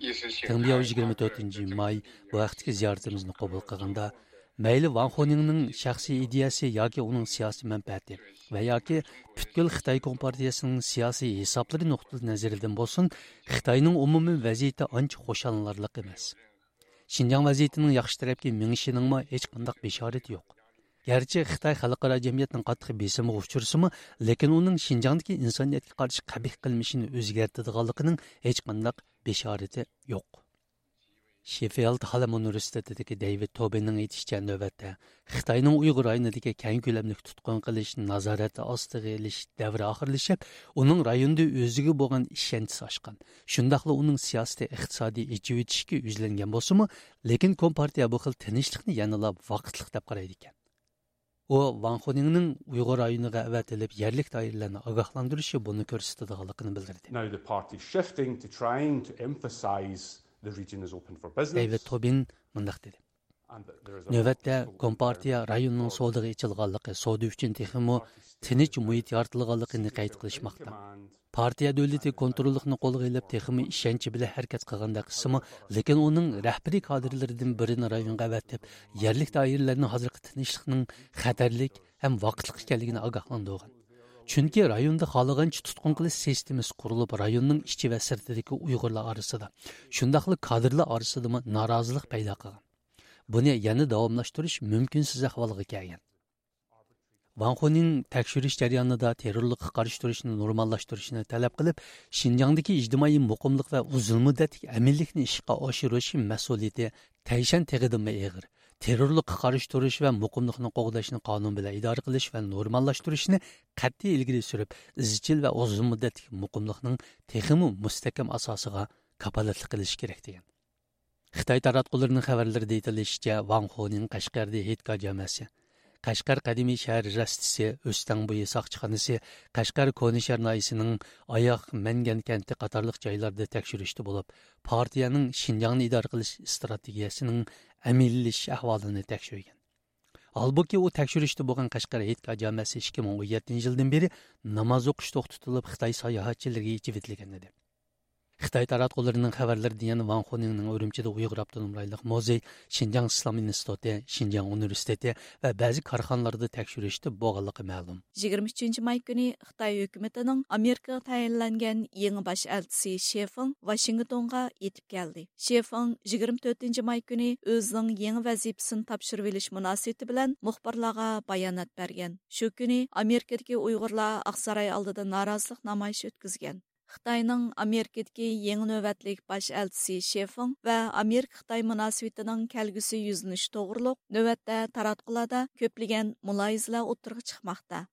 意识形态， تېڭ بياۋ يىگىرمە تۆتىنچى ماي بۇ ھەقتىكى زىيارىتىمىزنى قوبۇل قىلغاندا، مەيلى ۋاڭ خۇنىڭنىڭ شەخسىي ئىدىيەسى ياكى ئۇنىڭ سىياسىي مەنپەئەتى ۋە ياكى پۈتكۈل خىتاي كومپارتىيەسىنىڭ سىياسىي ھېسابلىرى نۇقتىئىنەزىرىدىن بولسۇن، خىتاينىڭ ئومۇمىي ۋەزىيىتى ئانچە خۇشاللىنارلىق ئەمەس. شىنجاڭ ۋەزىيىتىنىڭ ياخشى تەرەپكە مېڭىشىنىڭمۇ ھېچقانداق بېشارىتى يوق. گەرچە خىتاي خەلقئارا جەمئىيەتنىڭ قاتتىق بېسىمىغا ئۇچرىسىمۇ، لېكىن ئۇنىڭ شىنجاڭدىكى ئىنسانىيەتكە قارشى قەبىھ قىلمىشىنى ئۆزگەرتىدىغانلىقىنىڭ ھېچقانداق بېشارىتى يوق. شېففىلد ھالەم ئۇنىۋېرسىتېتىدىكى دېۋىد توبىننىڭ ئېيتىشىچە، نۆۋەتتە خىتاينىڭ ئۇيغۇر رايونىدىكى كەڭ كۆلەملىك تۇتقۇن قىلىش، نازارەت ئاستىغا ئېلىش دەۋرى ئاخىرلىشىپ، ئۇنىڭ رايوندا ئۆزىگە بولغان ئىشەنچىسى ئاشقان. شۇنداقلا ئۇنىڭ سىياسىتى ئىقتىسادىي ئېچىۋېتىشكە يۈزلەنگەن بولسىمۇ، لېكىن كومپارتىيە بۇ خىل تىنچلىقنى يەنىلا ۋاقىتلىق دەپ قارايدىكەن. ئۇ ۋاڭ خۇنىڭنىڭ ئۇيغۇر رايونىغا ئەۋەتىلىپ، يەرلىك دائىرىلەرنى ئاگاھلاندۇرۇشى بۇنى كۆرسىتىدىغانلىقىنى بىلدۈردى. Now the party is shifting to trying to emphasize the region is open for business. دېۋىد توبىن مۇنداق دېدى: نۆۋەتتە كومپارتىيە رايوننىڭ سودىغا ئېچىلغانلىقى، سودا ئۈچۈن تېخىمۇ تىنچ مۇھىت يارىتىلغانلىقىنى قەيت قىلىشماقتا. پارتىيە دۆلىتى كونتروللۇقنى قولغا ئېلىپ، تېخىمۇ ئىشەنچ بىلەن ھەرىكەت قىلغاندەك قىلسىمۇ، لېكىن ئۇنىڭ رەھبىرىي كادىرلىرىدىن بىرىنى رايونغا ئەۋەتىپ، يەرلىك دائىرىلەرنى ھازىرقى تىنچلىقنىڭ خەتەرلىك ھەم ۋاقىتلىق ئىكەنلىكىنى ئاگاھلاندۇرغان. چۈنكى رايوندا خالىغانچە تۇتقۇن قىلىش سىستېمىسى قۇرۇلۇپ، رايوننىڭ ئىچى ۋە سىرتىدىكى ئۇيغۇرلار ئارىسىدا، شۇنداقلا كادىرلار ئارىسىدىمۇ نارازىلىق پەيدا قىلغان. بۇنى يەنە داۋاملاشتۇرۇش مۇمكىنسىز ئەھۋالغا كەلگەن. ۋاڭ خۇنىڭ تەكشۈرۈش جەريانىدا تېررورلۇققا قارشى تۇرۇشنى نورماللاشتۇرۇشنى تەلەپ قىلىپ، شىنجاڭدىكى ئىجتىمائىي مۇقىملىق ۋە ئۇزۇن مۇددەتلىك ئەمىنلىكنى ئىشقا ئاشۇرۇش مەسئۇلىيىتى تەيشەن تېغىدىنمۇ ئېغىر، تېررورلۇققا قارشى تۇرۇش ۋە مۇقىملىقنى قوغداشنى قانۇن بىلەن ئىدارە قىلىش ۋە نورماللاشتۇرۇشنى قەتئىي ئىلگىرى سۈرۈپ، ئىزچىل ۋە ئۇزۇن مۇددەتلىك مۇقىملىقنىڭ تېخىمۇ مۇستەھكەم ئاساسىغا كاپالەتلىك قىلىش كېرەك، دېگەن. خىتاي تاراتقۇلىرىنىڭ خەۋەرلىرىدە ئېيتىلىشىچە، ۋاڭ خۇنىڭ قەشقەردىكى ھېيتگاھ جامەسى، قەشقەر قەدىمىي شەھەر رەستىسى، ئۆستەڭ بويى ساقچىخانىسى، قەشقەر كونا شەھەر ناھىيەسىنىڭ ئاياغ مەنگەن كەنتى قاتارلىق جايلاردا تەكشۈرۈشتە بولۇپ، پارتىيەنىڭ شىنجاڭنى ئىدارە قىلىش ئىستراتېگىيەسىنىڭ ئەمەلىيلىشىش ئەھۋالىنى تەكشۈرگەن. ھالبۇكى، ئۇ تەكشۈرۈشتە بولغان قەشقەر ھېيتگاھ جامەسى ئىككى مىڭ ئون يەتتىنچى يىلدىن بېرى ناماز ئوقۇش توختىتىلىپ، خىتاي ساياھەتچىلىرىگە ئېچىۋېتىلگەن ئىدى. خىتاي تاراتقۇلىرىنىڭ خەۋەرلىرىدە يەنە ۋاڭ خۇنىڭنىڭ ئۈرۈمچىدە ئۇيغۇر ئاپتونوم رايونلۇق مۇزېي، شىنجاڭ ئىسلام ئىنستىتۇتى، شىنجاڭ ئۇنىۋېرسىتېتى ۋە بەزى كارخانىلاردا تەكشۈرۈشتە بولغانلىقى مەلۇم. يىگىرمە ئۈچىنچى ماي كۈنى خىتاي ھۆكۈمىتىنىڭ ئامېرىكىغا تەيىنلەنگەن يېڭى باش ئەلچىسى شېفېڭ ۋاشىنگتونغا يېتىپ كەلدى. شېفېڭ يىگىرمە تۆتىنچى ماي كۈنى ئۆزىنىڭ يېڭى ۋەزىپىسىنى تاپشۇرۇۋېلىش مۇناسىۋىتى بىلەن مۇخبىرلارغا بايانات بەرگەن. شۇ كۈنى ئامېرىكىدىكى ئۇيغۇرلار ئاقساراي ئالدىدا نارازىلىق نامايىشى ئۆتكۈزگەن. خىتاينىڭ ئامېرىكىدىكى يېڭى نۆۋەتلىك باش ئەلچىسى شېفېڭ ۋە ئامېرىكا-خىتاي مۇناسىۋىتىنىڭ كەلگۈسى يۈزلىنىشى توغرۇلۇق نۆۋەتتە تاراتقۇلاردا كۆپلىگەن مۇلاھىزىلەر ئوتتۇرىغا چىقماقتا.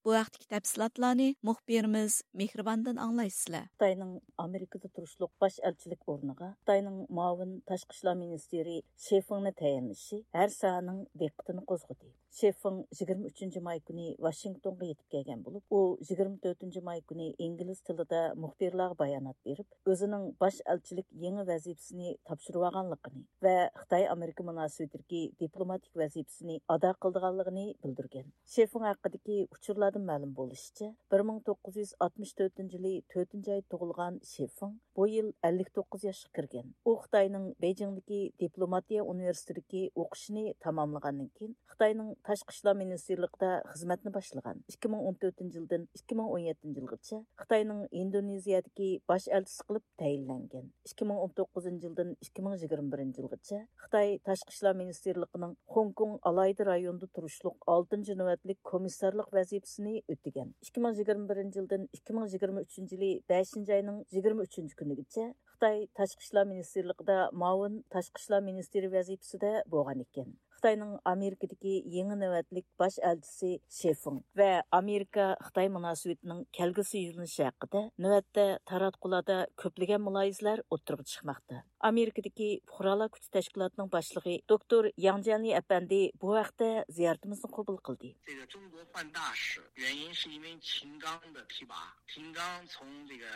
بۇ ھەقتىكى تەپسىلاتلارنى مۇخبىرىمىز مېھرىباندىن ئاڭلايسىلەر. خىتاينىڭ ئامېرىكىدا تۇرۇشلۇق باش ئەلچىلىك ئورنىغا خىتاينىڭ مۇئاۋىن تاشقى ئىشلار مىنىستىرى شېفېڭنى تەيىنلىشى ھەر ساھەنىڭ دىققىتىنى قوزغىدى. شېفېڭ يىگىرمە ئۈچىنچى ماي كۈنى ۋاشىنگتونغا يېتىپ كەلگەن بولۇپ، ئۇ يىگىرمە تۆتىنچى ماي كۈنى ئىنگلىز تىلىدا مۇخبىرلارغا بايانات بېرىپ، ئۆزىنىڭ باش ئەلچىلىك يېڭى ۋەزىپىسىنى تاپشۇرۇۋالغانلىقىنى ۋە خىتاي ئامېرىكا مۇناسىۋىتىدىكى دىپلوماتىك ۋەزىپىسىنى ئادا قىلىدىغانلىقىنى بىلدۈرگەن. شېفېڭ ھەققىدىكى ئۇچۇرلاردىن مەلۇم بولۇشىچە، بىر مىڭ توققۇز يۈز ئاتمىش تۆتىنچى يىلى تۆتىنچى ئاي تۇغۇلغان شېفېڭ بۇ يىل ئەللىك توققۇز ياشقا كىرگەن. ئۇ خىتاينىڭ بېيجىڭدىكى دىپلوماتىيە ئۇنىۋېرسىتېتىدىكى ئوقۇشىنى تاماملىغاندىن كېيىن، خىتاينىڭ تاشقى ئىشلار مىنىستىرلىقىدا خىزمەتنى باشلىغان. ئىككى مىڭ ئون تۆتىنچى يىلدىن ئىككى مىڭ ئون يەتتىنچى يىلغىچە خىتاينىڭ ئىندونېزىيەدىكى باش ئەلچىسى قىلىپ تەيىنلەنگەن. ئىككى مىڭ ئون توققۇزىنچى يىلدىن ئىككى مىڭ يىگىرمە بىرىنچى يىلغىچە خىتاي تاشقى ئىشلار مىنىستىرلىقىنىڭ خوڭكوڭ ئالاھىدە رايونىدا تۇرۇشلۇق ئالتىنچى نۆۋەتلىك كومىسسارلىق ۋەزىپىسىنى ئۆتىگەن. ئىككى مىڭ يىگىرمە بىرىنچى يىلدىن ئىككى مىڭ يىگىرمە ئۈچىنچى يىلى بەشىنچى ئاينىڭ يىگىرمە ئۈچىنچى كۈنىگىچە خىتاي تاشقى ئىشلار مىنىستىرلىقىدا مۇئاۋىن تاشقى ئىشلار مىنىستىرى ۋەزىپىسىدە بولغان ئىكەن. خىتاينىڭ ئامېرىكىدىكى يېڭى نۆۋەتلىك باش ئەلچىسى شېفېڭ ۋە ئامېرىكا-خىتاي مۇناسىۋىتىنىڭ كەلگۈسى يۆنىلىشى ھەققىدە نۆۋەتتە تاراتقۇلاردا كۆپلىگەن مۇلاھىزىلەر ئوتتۇرىغا چىقماقتا. ئامېرىكىدىكى پۇقرالار كۈچى تەشكىلاتىنىڭ باشلىقى دوكتور ياڭ جيەنلى ئەپەندى بۇ ھەقتە زىيارىتىمىزنى قوبۇل قىلدى. 这个中国换大使，原因是因为秦刚的提拔。秦刚从这个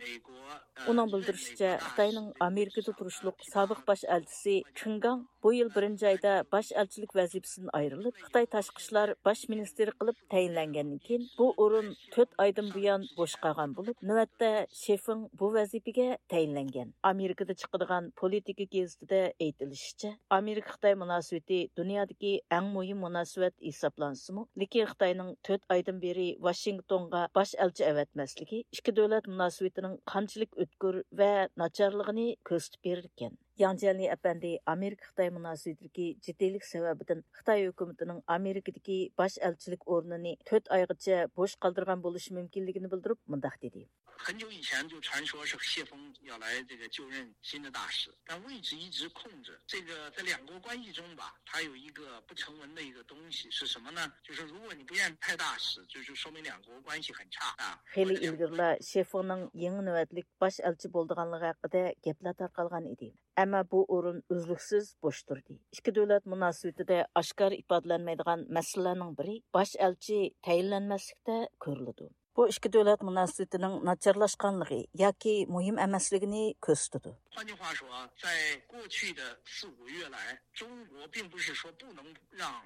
美国，呃， ئۇنىڭ بىلدۈرۈشىچە، خىتاينىڭ ئامېرىكىدا تۇرۇشلۇق سابىق باش ئەلچىسى كېڭ گاڭ بۇ يىل بىرىنچى ئايدا باش ئەلچىلىك ۋەزىپىسىدىن ئايرىلىپ، خىتاي تاشقى ئىشلار باش مىنىستىرى قىلىپ تەيىنلەنگەندىن كېيىن، بۇ ئورۇن تۆت ئايدىن بۇيان بوش قالغان بولۇپ، نۆۋەتتە شېفېڭ بۇ ۋەزىپىگە تەيىنلەنگەن. ئامېرىكىدا چىقىدىغان پولىتىكا گېزىتىدە ئېيتىلىشىچە، ئامېرىكا-خىتاي مۇناسىۋىتى دۇنيادىكى ئەڭ مۇھىم مۇناسىۋەت ھېسابلانسىمۇ، لېكىن خىتاينىڭ تۆت ئايدىن بېرى ۋاشىنگتونغا باش ئەلچى ئەۋەتمەسلىكى ئىككى دۆلەت مۇناسىۋىتىنىڭ قانچىلىك ئۆتكۈر ۋە ناچارلىقىنى كۆرسىتىپ بېرىدىكەن. ياڭ جيەنلى ئەپەندى ئامېرىكا-خىتاي مۇناسىۋىتىدىكى جىددىيلىك سەۋەبىدىن خىتاي ھۆكۈمىتىنىڭ ئامېرىكىدىكى باش ئەلچىلىك ئورنىنى تۆت ئايغىچە بوش قالدۇرغان بولۇشى مۇمكىنلىكىنى بىلدۈرۈپ مۇنداق دېدى. 很久以前就传说是谢峰要来这个就任新的大使，但位置一直空着。这个在两国关系中吧，它有一个不成文的一个东西是什么呢？就是如果你不愿意派大使，就是说明两国关系很差啊。 خېلى ئىلگىرىلا شېفېڭنىڭ يېڭى نۆۋەتلىك باش ئەلچى بولىدىغانلىقى ھەققىدە گەپلەر تارقالغان ئىدى. ئەمما بۇ ئورۇن ئۈزلۈكسىز بوش تۇردى. ئىككى دۆلەت مۇناسىۋىتىدە ئاشكارا ئىپادىلەنمەيدىغان مەسىلىلەرنىڭ بىرى باش ئەلچى تەيىنلەنمەسلىكتە كۆرۈلىدۇ. بۇ ئىككى دۆلەت مۇناسىۋىتىنىڭ ناچارلاشقانلىقى ياكى مۇھىم ئەمەسلىكىنى كۆرسىتىدۇ. 换句话说，在过去的四五个月来，中国并不是说不能让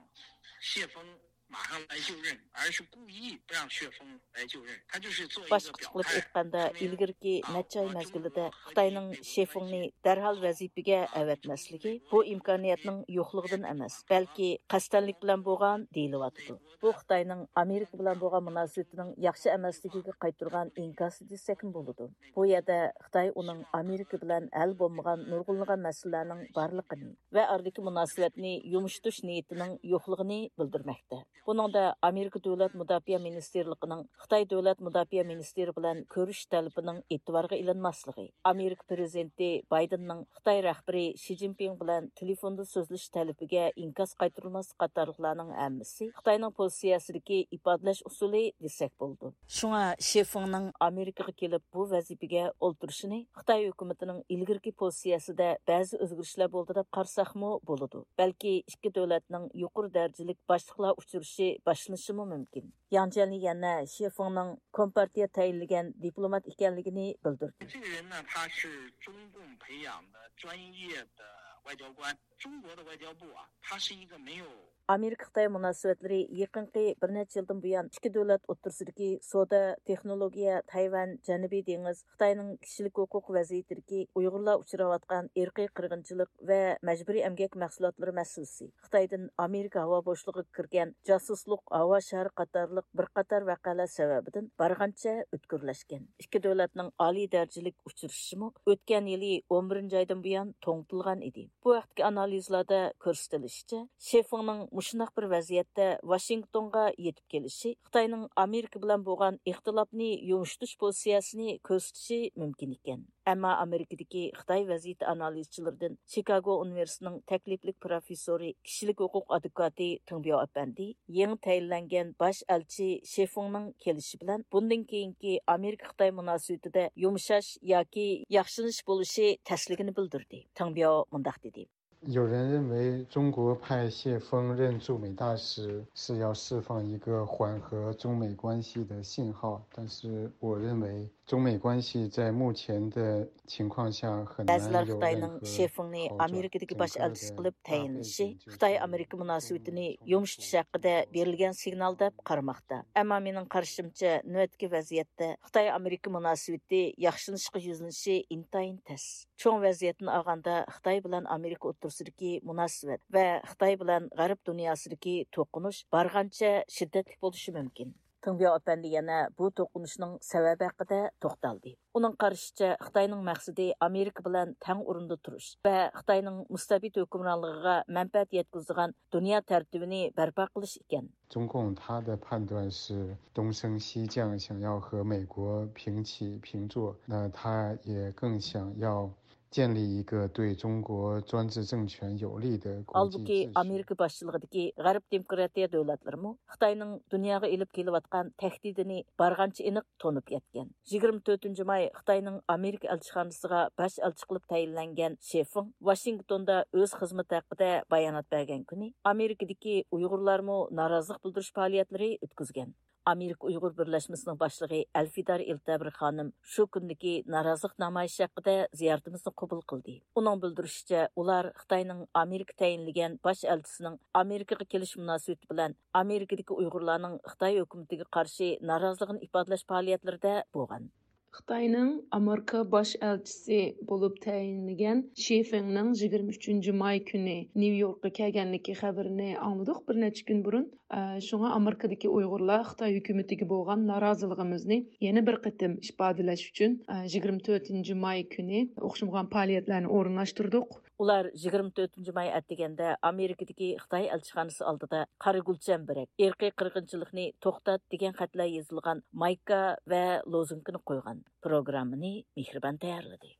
谢峰马上来就任，而是故意不让谢峰来就任，他就是做一 باشقىچە قىلىپ ئېيتقاندا، ئىلگىرىكى نەچچە ئاي مەزگىلىدە خىتاينىڭ شېفېڭنى دەرھال ۋەزىپىگە ئەۋەتمەسلىكى بۇ ئىمكانىيەتنىڭ يوقلۇقىدىن ئەمەس، بەلكى قەستەنلىك بىلەن بولغان دېيىلىۋاتىدۇ. بۇ خىتاينىڭ ئامېرىكا بىلەن بولغان مۇناسىۋىتىنىڭ ياخشى ئەمەسلىكىگە قايتۇرغان ئىنكاسى دېسەكمۇ بولىدۇ. بۇ يەردە خىتاي ئۇنىڭ ئامېرىكا بىلەن ھەل بولمىغان نۇرغۇنلىغان مەسىلىلەرنىڭ بارلىقىنى ۋە ئارىدىكى مۇناسىۋەتنى يۇمشىتىش نىيىتىنىڭ يوقلۇقىنى بىلدۈرمەكتە. بۇنىڭدا ئامېرىكا دۆلەت مۇداپىئە مىنىستىرلىقىنىڭ خىتاي دۆلەت مۇداپىئە مىنىستىرى بىلەن كۆرۈشۈش تەلىپىنىڭ ئېتىبارغا ئېلىنماسلىقى، ئامېرىكا پىرېزىدېنتى بايدېننىڭ خىتاي رەھبىرى شى جىنپىڭ بىلەن تېلېفوندا سۆزلىشىش تەلىپىگە ئىنكاس قايتۇرۇلماسلىق قاتارلىقلارنىڭ ھەممىسى خىتاينىڭ پوزىتسىيەسىدىكى ئىپادىلەش ئۇسۇلى دېسەك بولىدۇ. شۇڭا شې فېڭنىڭ ئامېرىكىغا كېلىپ بۇ ۋەزىپىگە ئولتۇرۇشىنى خىتاي ھۆكۈمىتىنىڭ ئىلگىرىكى پوزىتسىيەسىدە بەزى ئۆزگىرىشلەر بولدى دەپ قارىساقمۇ بولىدۇ. بەلكى ئىككى دۆلەتنىڭ يۇقىرى دەرىجىلىك باشلىقلار ئۇچرىشىشى باشلىنىشىمۇ مۇمكىن. ياڭ جيەنلى يەنە شې فېڭنىڭ كومپارتىيە تەيىنلىگەن دىپلومات ئىكەنلىكىنى بىلدۈردى. 这个人呢，他是中共培养的专业的外交官。中国的外交部啊，它是一个没有 ئامېرىكا-خىتاي مۇناسىۋەتلىرى يېقىنقى بىر نەچچە يىلدىن بۇيان ئىككى دۆلەت ئوتتۇرىسىدىكى سودا، تېخنولوگىيە، تەيۋەن، جەنۇبىي دېڭىز، خىتاينىڭ كىشىلىك ھوقۇق ۋەزىيىتىدىكى ئۇيغۇرلار ئۇچراۋاتقان ئىرقىي قىرغىنچىلىق ۋە مەجبۇرىي ئەمگەك مەھسۇلاتلىرى مەسىلىسى، خىتايدىن ئامېرىكا ھاۋا بوشلۇقىغا كىرگەن جاسۇسلۇق ھاۋا شارى قاتارلىق بىر قاتار ۋەقەلەر سەۋەبىدىن بارغانچە ئۆتكۈرلەشكەن. ئىككى دۆلەتنىڭ ئالىي دەرىجىلىك ئۇچرىشىشىمۇ ئۆتكەن يىلى ئون بىرىنچى ئايدىن بۇيان توڭتۇلغان ئىدى. بۇ ھەقتىكى ئانالىزلاردا كۆرسىتىلىشىچە، شې فېڭنىڭ مۇشۇنداق بىر ۋەزىيەتتە ۋاشىنگتونغا يېتىپ كېلىشى خىتاينىڭ ئامېرىكا بىلەن بولغان ئىختىلاپنى يۇمشىتىش پوزىتسىيەسىنى كۆرسىتىشى مۇمكىن ئىكەن. ئەمما ئامېرىكىدىكى خىتاي ۋەزىيىتى ئانالىزچىلىرىدىن چىكاگو ئۇنىۋېرسىتېتىنىڭ تەكلىپلىك پروفېسسورى، كىشىلىك ھوقۇق ئادۋوكاتى تېڭ بياۋ ئەپەندى يېڭى تەيىنلەنگەن باش ئەلچى شې فېڭنىڭ كېلىشى بىلەن بۇندىن كېيىنكى ئامېرىكا-خىتاي مۇناسىۋىتىدە يۇمشاش ياكى ياخشىلىنىش بولۇشى تەسلىكىنى بىلدۈردى. تېڭ بياۋ مۇنداق دېدى. 有人认为中国派谢峰任驻美大使是要释放一个缓和中美关系的信号，但是我认为中美关系在目前的情况下很难有任何好转。 بەزىلەر خىتاينىڭ شې فېڭنى ئامېرىكىدىكى باش ئەلچىسى قىلىپ تەيىنلىشى خىتاي-ئامېرىكا مۇناسىۋىتىنى يۇمشىتىش ھەققىدە بېرىلگەن سىگنال دەپ قارىماقتا. ئەمما مېنىڭ قارىشىمچە، نۆۋەتتىكى ۋەزىيەتتە خىتاي-ئامېرىكا مۇناسىۋىتى ياخشىلىنىشقا يۈزلىنىشى ئىنتايىن تەس. چوڭ ۋەزىيەتتىن ئالغاندا، خىتاي بىلەن ئامېرىكا ئوتتۇرىسىدىكى مۇناسىۋەت ۋە خىتاي بىلەن غەرب دۇنياسىدىكى توقۇنۇش بارغانچە شىددەتلىك بولۇشى مۇمكىن. تېڭ بياۋ ئەپەندى يەنە بۇ توقۇنۇشنىڭ سەۋەبى ھەققىدە توختالدى. ئۇنىڭ قارىشىچە، خىتاينىڭ مەقسىتى ئامېرىكا بىلەن تەڭ ئورۇندا تۇرۇش ۋە خىتاينىڭ مۇستەبىت ھۆكۈمرانلىقىغا مەنپەئەت يەتكۈزىدىغان دۇنيا تەرتىپىنى بەرپا قىلىش ئىكەن. 中共他的判断是东升西降，想要和美国平起平坐，那他也更想要建立一个对中国专制政权有利的国际秩序。 ھالبۇكى، ئامېرىكا باشچىلىقىدىكى غەرب دېموكراتىيە دۆلەتلىرىمۇ خىتاينىڭ دۇنياغا ئېلىپ كېلىۋاتقان تەھدىتىنى بارغانچە ئېنىق تونۇپ يەتكەن. يىگىرمە تۆتىنچى ماي خىتاينىڭ ئامېرىكا ئەلچىخانىسىغا باش ئەلچى قىلىپ تەيىنلەنگەن شې فېڭ ۋاشىنگتوندا ئۆز خىزمىتى ھەققىدە بايانات بەرگەن كۈنى ئامېرىكىدىكى ئۇيغۇرلارمۇ نارازىلىق بىلدۈرۈش پائالىيەتلىرى ئۆتكۈزگەن. ئامېرىكا ئۇيغۇر بىرلەشمىسىنىڭ باشلىقى ئەلفىدار ئىلتەبىر خانىم شۇ كۈندىكى نارازىلىق نامايىشى ھەققىدە زىيارىتىمىزنى قوبۇل قىلدى. ئۇنىڭ بىلدۈرۈشىچە، ئۇلار خىتاينىڭ ئامېرىكا تەيىنلىگەن باش ئەلچىسىنىڭ ئامېرىكىغا كېلىش مۇناسىۋىتى بىلەن ئامېرىكىدىكى ئۇيغۇرلارنىڭ خىتاي ھۆكۈمىتىگە قارشى نارازىلىقىنى ئىپادىلەش پائالىيەتلىرىدە بولغان. خىتاينىڭ ئامېرىكا باش ئەلچىسى بولۇپ تەيىنلىگەن شى فېڭنىڭ يىگىرمە ئۈچىنچى ماي كۈنى نيۇ يوركقا كەلگەنلىكى خەۋىرىنى ئاڭلىدۇق بىر نەچچە كۈن بۇرۇن. ئە، شۇڭا ئامېرىكىدىكى ئۇيغۇرلار خىتاي ھۆكۈمىتىگە بولغان نارازىلىقىمىزنى يەنە بىر قېتىم ئىپادىلەش ئۈچۈن، ئە، يىگىرمە تۆتىنچى ماي كۈنى ئوخشىمىغان پائالىيەتلەرنى ئورۇنلاشتۇردۇق. ئۇلار يىگىرمە تۆتىنچى ماي ئەتىگەندە ئامېرىكىدىكى خىتاي ئەلچىخانىسى ئالدىدا «قارا گۈل چەمبىرەك، ئىرقىي قىرغىنچىلىقنى توختات» دېگەن خەتلەر يېزىلغان مايكا ۋە لوزۇنكىنى قويغان. پروگراممىنى مېھرىبان تەييارلىدى.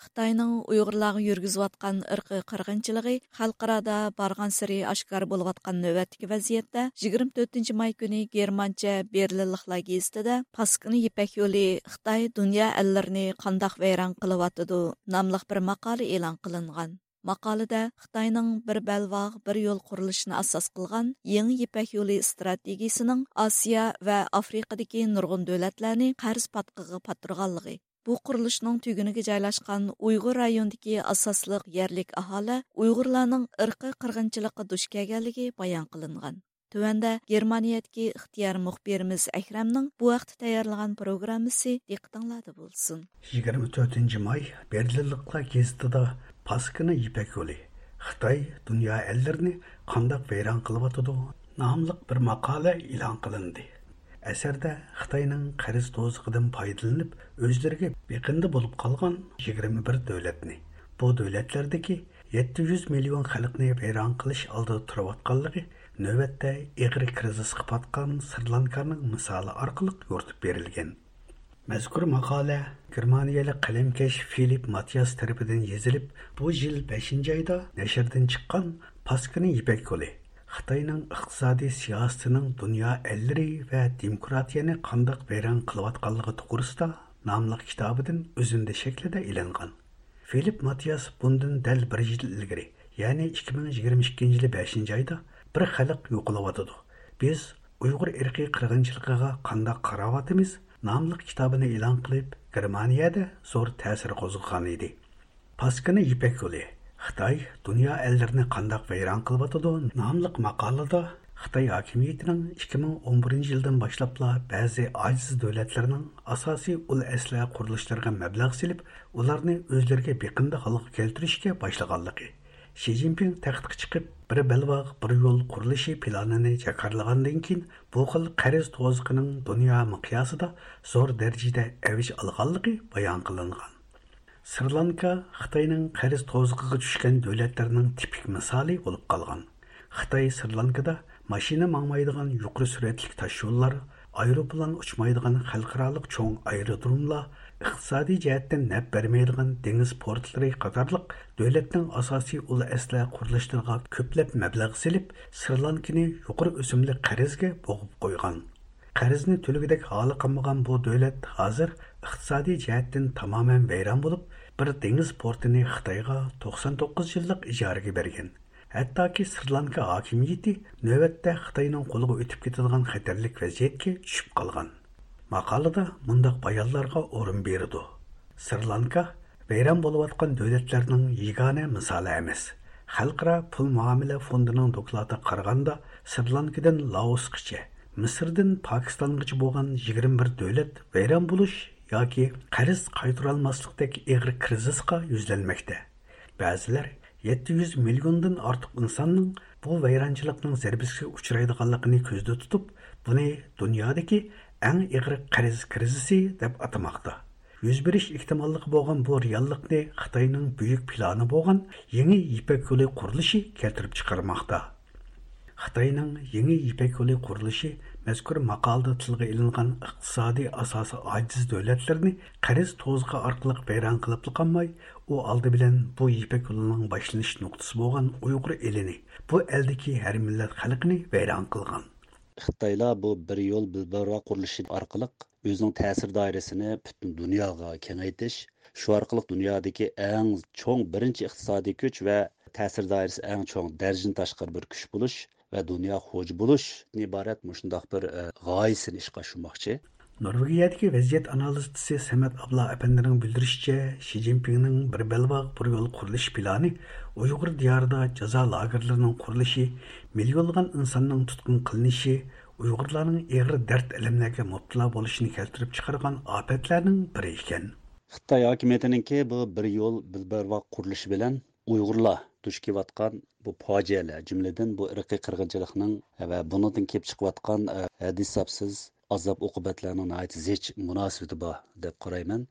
خىتاينىڭ ئۇيغۇرلارغا يۈرگۈزۈۋاتقان ئىرقىي قىرغىنچىلىقى خەلقئارادا بارغانسېرى ئاشكارا بولۇۋاتقان نۆۋەتتىكى ۋەزىيەتتە، يىگىرمە تۆتىنچى ماي كۈنى گېرمانچە بېرلىنلىقلار گېزىتىدە «پاسكىنا يىپەك يولى: خىتاي دۇنيا ئەللىرىنى قانداق ۋەيران قىلىۋاتىدۇ؟» ناملىق بىر ماقالە ئېلان قىلىنغان. ماقالىدە خىتاينىڭ بىر بەلباغ، بىر يول قۇرۇلۇشىنى ئاساس قىلغان يېڭى يىپەك يولى ئىستراتېگىيىسىنىڭ ئاسىيا ۋە ئافرىقىدىكى نۇرغۇن دۆلەتلەرنى قەرز پاتقىقىغا پاتتۇرغانلىقى، بۇ قۇرۇلۇشنىڭ تۈگۈنىگە جايلاشقان ئۇيغۇر رايونىدىكى ئاساسلىق يەرلىك ئاھالە ئۇيغۇرلارنىڭ ئىرقىي قىرغىنچىلىققا دۇچ كەلگەنلىكى بايان قىلىنغان. تۆۋەندە گېرمانىيەدىكى ئىختىيارىي مۇخبىرىمىز ئەكرەمنىڭ بۇ ھەقتە تەييارلىغان پروگراممىسى دىققىتىڭلاردا بولسۇن. يىگىرمە تۆتىنچى ماي بېرلىنلىقلار گېزىتىدا «پاسكىنا يىپەك يولى: خىتاي دۇنيا ئەللىرىنى قانداق ۋەيران قىلىۋاتىدۇ؟» ناملىق بىر ماقالە ئېلان قىلىندى. ئەسەردە خىتاينىڭ قەرز توزىقىدىن پايدىلىنىپ، ئۆزلىرىگە بېقىندى بولۇپ قالغان يىگىرمە بىر دۆلەتنى، بۇ دۆلەتلەردىكى يەتتە يۈز مىليون خەلقنى ۋەيران قىلىش ئالدىدا تۇرۇۋاتقانلىقى نۆۋەتتە ئېغىر كىرىزىسقا پاتقان سرى لانكانىڭ مىسالى ئارقىلىق يورۇتۇپ بېرىلگەن. مەزكۇر ماقالە گېرمانىيەلىك قەلەمكەش فىلىپ ماتىياس تەرىپىدىن يېزىلىپ، بۇ يىل بەشىنچى ئايدا نەشردىن چىققان پاسكىنا يىپەك يولى، خىتاينىڭ ئىقتىسادىي سىياسىتىنىڭ دۇنيا ئەللىرى ۋە دېموكراتىيەنى قانداق ۋەيران قىلىۋاتقانلىقى توغرىسىدا ناملىق كىتابىدىن ئۈزۈندە شەكلىدە ئېلىنغان. فىلىپ ماتىياس بۇندىن دەل بىر يىل ئىلگىرى، يەنى ئىككى مىڭ يىگىرمە ئىككىنچى يىلى بەشىنچى ئايدا بىر خەلق يوقىلىۋاتىدۇ، بىز ئۇيغۇر ئىرقىي قىرغىنچىلىقىغا قانداق قاراۋاتىمىز ناملىق كىتابىنى ئېلان قىلىپ، گېرمانىيەدە زور تەسىر قوزغىغان ئىدى. پاسكىنا يىپەك يولى، خىتاي دۇنيا ئەللىرىنى قانداق ۋەيران قىلىۋاتىدۇ ناملىق ماقالىدا خىتاي ھاكىمىيىتىنىڭ ئىككى مىڭ ئون بىرىنچى يىلدىن باشلاپلا بەزى ئاجىز دۆلەتلەرنىڭ ئاساسىي ئۇل ئەسلىھە قۇرۇلۇشلىرىغا مەبلەغ سېلىپ، ئۇلارنى ئۆزلىرىگە بېقىندى ھالغا كەلتۈرۈشكە باشلىغانلىقى، شى جىنپىڭ تەختكە چىقىپ، بىر بەلباغ، بىر يول قۇرۇلۇشى پىلانىنى جاكارلىغاندىن كېيىن، بۇ خىل قەرز توزۇقىنىڭ دۇنيا مىقياسىدا زور دەرىجىدە ئەۋج ئالغانلىقى بايان قىلىنغان. سرى لانكا خىتاينىڭ قەرز توزۇقىغا چۈشكەن دۆلەتلەرنىڭ تىپىك مىسالى بولۇپ قالغان. خىتاي سرى لانكىدا ماشىنا ماڭمايدىغان يۇقىرى سۈرئەتلىك تاشيوللار، ئايروپىلان ئۇچمايدىغان خەلقئارالىق چوڭ ئايرودروملار، ئىقتىسادىي جەھەتتىن نەپ بەرمەيدىغان دېڭىز پورتلىرى قاتارلىق دۆلەتنىڭ ئاساسىي ئۇل ئەسلىھە قۇرۇلۇشلىرىغا كۆپلەپ مەبلەغ سېلىپ، سرى لانكىنى يۇقىرى ئۆسۈملۈك قەرزگە بوغۇپ قويغان. قەرزنى تۆلىگۈدەك ھالى قالمىغان بۇ دۆلەت ھازىر ئىقتىسادىي جەھەتتىن تامامەن ۋەيران بولۇپ، بىر دېڭىز پورتىنى خىتايغا توقسان توققۇز يىللىق ئىجارىگە بەرگەن. ھەتتاكى سرى لانكا ھاكىمىيىتى نۆۋەتتە خىتاينىڭ قولىغا ئۆتۈپ كېتىدىغان خەتەرلىك ۋەزىيەتكە چۈشۈپ قالغان. ماقالىدە مۇنداق بايانلارغا ئورۇن بېرىدۇ. سرى لانكا ۋەيران بولۇۋاتقان دۆلەتلەرنىڭ يېگانە مىسالى ئەمەس. خەلقئارا پۇل مۇئامىلە فوندىنىڭ دوكلاتىغا قارىغاندا، سرى لانكىدىن لائوسقىچە، مىسىردىن پاكىستانغىچە بولغان يىگىرمە بىر دۆلەت ۋەيران بولۇش ياكى قەرز قايتۇرالماسلىقتەك ئېغىر كىرىزىسقا يۈزلەنمەكتە. بەزىلەر يەتتە يۈز مىليوندىن ئارتۇق ئىنساننىڭ بۇ ۋەيرانچىلىقنىڭ زەربىسىگە ئۇچرايدىغانلىقىنى كۆزدە تۇتۇپ، بۇنى دۇنيادىكى ئەڭ ئېغىر قەرز كىرىزىسى دەپ ئاتىماقتا. يۈز بېرىش ئېھتىماللىقى بولغان بۇ رېئاللىقنى خىتاينىڭ بۈيۈك پىلانى بولغان يېڭى يىپەك يولى قۇرۇلۇشى كەلتۈرۈپ چىقارماقتا. خىتاينىڭ يېڭى يىپەك يولى قۇرۇلۇشى مەزكۇر ماقالىدا تىلغا ئېلىنغان ئىقتىسادىي ئاساسى ئاجىز دۆلەتلەرنى قەرز توزۇقى ئارقىلىق ۋەيران قىلىپلا قالماي، ئۇ ئالدى بىلەن بۇ يىپەك يولىنىڭ باشلىنىش نۇقتىسى بولغان ئۇيغۇر ئېلىنى، بۇ ئەلدىكى ھەر مىللەت خەلقىنى ۋەيران قىلغان. خىتايلار بۇ بىر يول، بىر بەلباغ قۇرۇلۇشى ئارقىلىق ئۆزىنىڭ تەسىر دائىرىسىنى پۈتۈن دۇنياغا كېڭەيتىش، شۇ ئارقىلىق دۇنيادىكى ئەڭ چوڭ بىرىنچى ئىقتىسادىي كۈچ ۋە تەسىر دائىرىسى ئەڭ چوڭ، دەرىجىدىن تاشقىرى بىر كۈچ بولۇش ۋە دۇنيا خوجا بولۇشتىن ئىبارەت مۇشۇنداق بىر، ئە، غايىسىنى ئىشقا ئاشۇرماقچى. نورۋېگىيەدىكى ۋەزىيەت ئانالىزچىسى سەمەت ئابلا ئەپەندىنىڭ بىلدۈرۈشىچە، شى جىنپىڭنىڭ بىر بەلباغ، بىر يول قۇرۇلۇشى پىلانى ئۇيغۇر دىيارىدا جازا لاگېرلىرىنىڭ قۇرۇلۇشى، مىليونلىغان ئىنساننىڭ تۇتقۇن قىلىنىشى، ئۇيغۇرلارنىڭ ئېغىر دەرد-ئەلەملەرگە مۇپتىلا بولۇشىنى كەلتۈرۈپ چىقارغان ئاپەتلەرنىڭ بىرى ئىكەن. خىتاي ھاكىمىيىتىنىڭكى بۇ بىر يول، بىر بەلباغ قۇرۇلۇشى بىلەن ئۇيغۇرلار دۇچ كېلىۋاتقان بۇ پاجىئەلەر، جۈملىدىن بۇ ئىرقىي قىرغىنچىلىقنىڭ ۋە بۇنىڭدىن كېلىپ چىقىۋاتقان، ئە، ھەددى-ھېسابسىز ئازاب-ئوقۇبەتلەرنىڭ ناھايىتى زىچ مۇناسىۋىتى بار دەپ قارايمەن.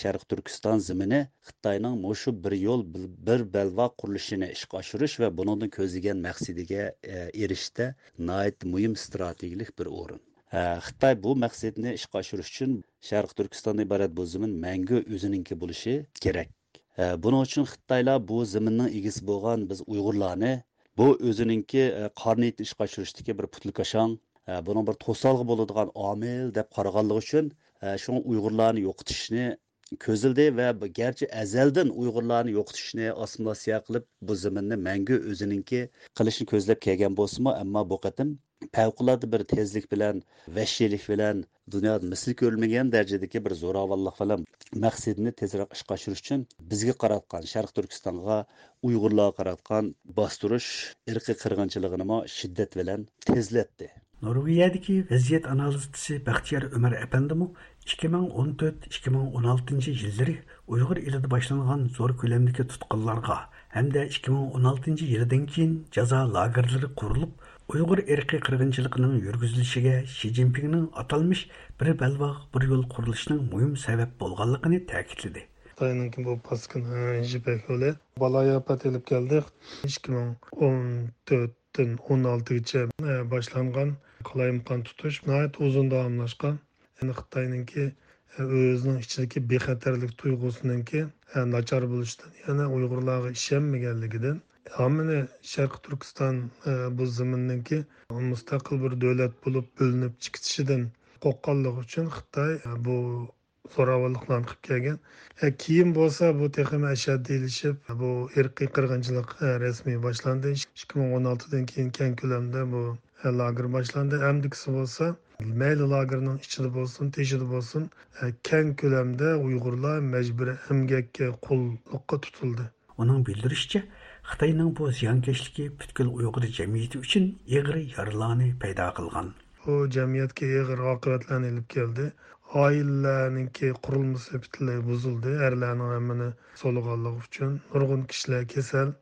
شەرقىي تۈركىستان زېمىنى خىتاينىڭ مۇشۇ بىر يول، بىر، بىر بەلباغ قۇرۇلۇشىنى ئىشقا ئاشۇرۇش ۋە بۇنىڭدىن كۆزلىگەن مەقسىتىگە، ئە، ئېرىشىشتە ناھايىتى مۇھىم ئىستراتېگىيەلىك بىر ئورۇن. ئە، خىتاي بۇ مەقسىتىنى ئىشقا ئاشۇرۇش ئۈچۈن شەرقىي تۈركىستاندىن ئىبارەت بۇ زېمىن مەڭگۈ ئۆزىنىڭكى بولۇشى كېرەك. ئە، بۇنىڭ ئۈچۈن خىتايلار بۇ زېمىننىڭ ئىگىسى بولغان بىز ئۇيغۇرلارنى بۇ ئۆزىنىڭكى، ئە، قارا نىيىتىنى ئىشقا ئاشۇرۇشتىكى بىر پۇتلىكاشاڭ، ئە، بۇنىڭ بىر توسالغۇ بولىدىغان ئامىل دەپ قارىغانلىقى ئۈچۈن، ئە، شۇڭا ئۇيغۇرلارنى يوقىتىشنى كۆزلىدى ۋە بۇ گەرچە ئەزەلدىن ئۇيغۇرلارنى يوقىتىشنى، ئاسسىمىلياتسىيە قىلىپ، بۇ زېمىننى مەڭگۈ ئۆزىنىڭكى قىلىشنى كۆزلەپ كەلگەن بولسىمۇ، ئەمما بۇ قېتىم پەۋقۇلئاددە بىر تېزلىك بىلەن، ۋەھشىيلىك بىلەن، دۇنيادا مىسلى كۆرۈلمىگەن دەرىجىدىكى بىر زوراۋانلىق بىلەن مەقسىتىنى تېزرەك ئىشقا ئاشۇرۇش ئۈچۈن بىزگە قاراتقان، شەرقىي تۈركىستانغا، ئۇيغۇرلارغا قاراتقان باستۇرۇش، ئىرقىي قىرغىنچىلىقىنىمۇ شىددەت بىلەن تېزلەتتى. نورۋېگىيەدىكى ۋەزىيەت ئانالىزچىسى بەختىيار ئۆمەر ئەپەندىمۇ ئىككى مىڭ ئون تۆت، ئىككى مىڭ ئون ئالتىنچى يىللىرى ئۇيغۇر ئېلىدا باشلانغان زور كۆلەمدىكى تۇتقۇنلارغا ھەمدە ئىككى مىڭ ئون ئالتىنچى يىلىدىن كېيىن جازا لاگېرلىرى قۇرۇلۇپ، ئۇيغۇر ئىرقىي قىرغىنچىلىقىنىڭ يۈرگۈزۈلۈشىگە شى جىنپىڭنىڭ ئاتالمىش بىر بەلباغ، بىر يول قۇرۇلۇشىنىڭ مۇھىم سەۋەب بولغانلىقىنى تەكىتلىدى. خىتاينىڭكى بۇ پاسكىنا يىپەك يولى بالايىئاپەت ئېلىپ كەلدى. ئىككى مىڭ ئون تۆتتىن ئون ئالتىگىچە باشلانغان قالايمىقان تۇتۇش ناھايىتى ئۇزۇن داۋاملاشقان. يەنى خىتاينىڭكى ئۆزىنىڭ ئىچىدىكى بىخەتەرلىك تۇيغۇسىنىڭكى ناچار بولۇشىدىن، يەنى ئۇيغۇرلارغا ئىشەنمىگەنلىكىدىن، ھامىنى شەرقىي تۈركىستان، ئە، بۇ زېمىننىڭكى مۇستەقىل بىر دۆلەت بولۇپ بۆلۈنۈپ چىقىشىدىن قورققانلىقى ئۈچۈن خىتاي، ئە، بۇ زوراۋانلىقلارنى قىلىپ كەلگەن. ئە، كېيىن بولسا بۇ تېخىمۇ ئەشەددىيلىشىپ، بۇ ئىرقىي قىرغىنچىلىق، ئە، رەسمىي باشلاندى. ئىككى مىڭ ئون ئالتىدىن كېيىن كەڭ كۆلەمدە بۇ، ئە، لاگېر باشلاندى. ئەمدىكىسى بولسا مەيلى لاگېرنىڭ ئىچىدە بولسۇن، تېشىدا بولسۇن، ئە، كەڭ كۆلەمدە ئۇيغۇرلار مەجبۇرىي ئەمگەككە، قۇللۇققا تۇتۇلدى. ئۇنىڭ بىلدۈرۈشىچە، خىتاينىڭ بۇ زىيانكەشلىكى پۈتكۈل ئۇيغۇر جەمئىيىتى ئۈچۈن ئېغىر يارىلارنى پەيدا قىلغان. بۇ جەمئىيەتكە ئېغىر ئاقىۋەتلەرنى ئېلىپ كەلدى. ئائىلىلەرنىڭكى قۇرۇلمىسى پۈتۈنلەي بۇزۇلدى. ئەرلەرنىڭ ھەممىنى سولىغانلىقى ئۈچۈن نۇرغۇن كىشىلەر كېسەل.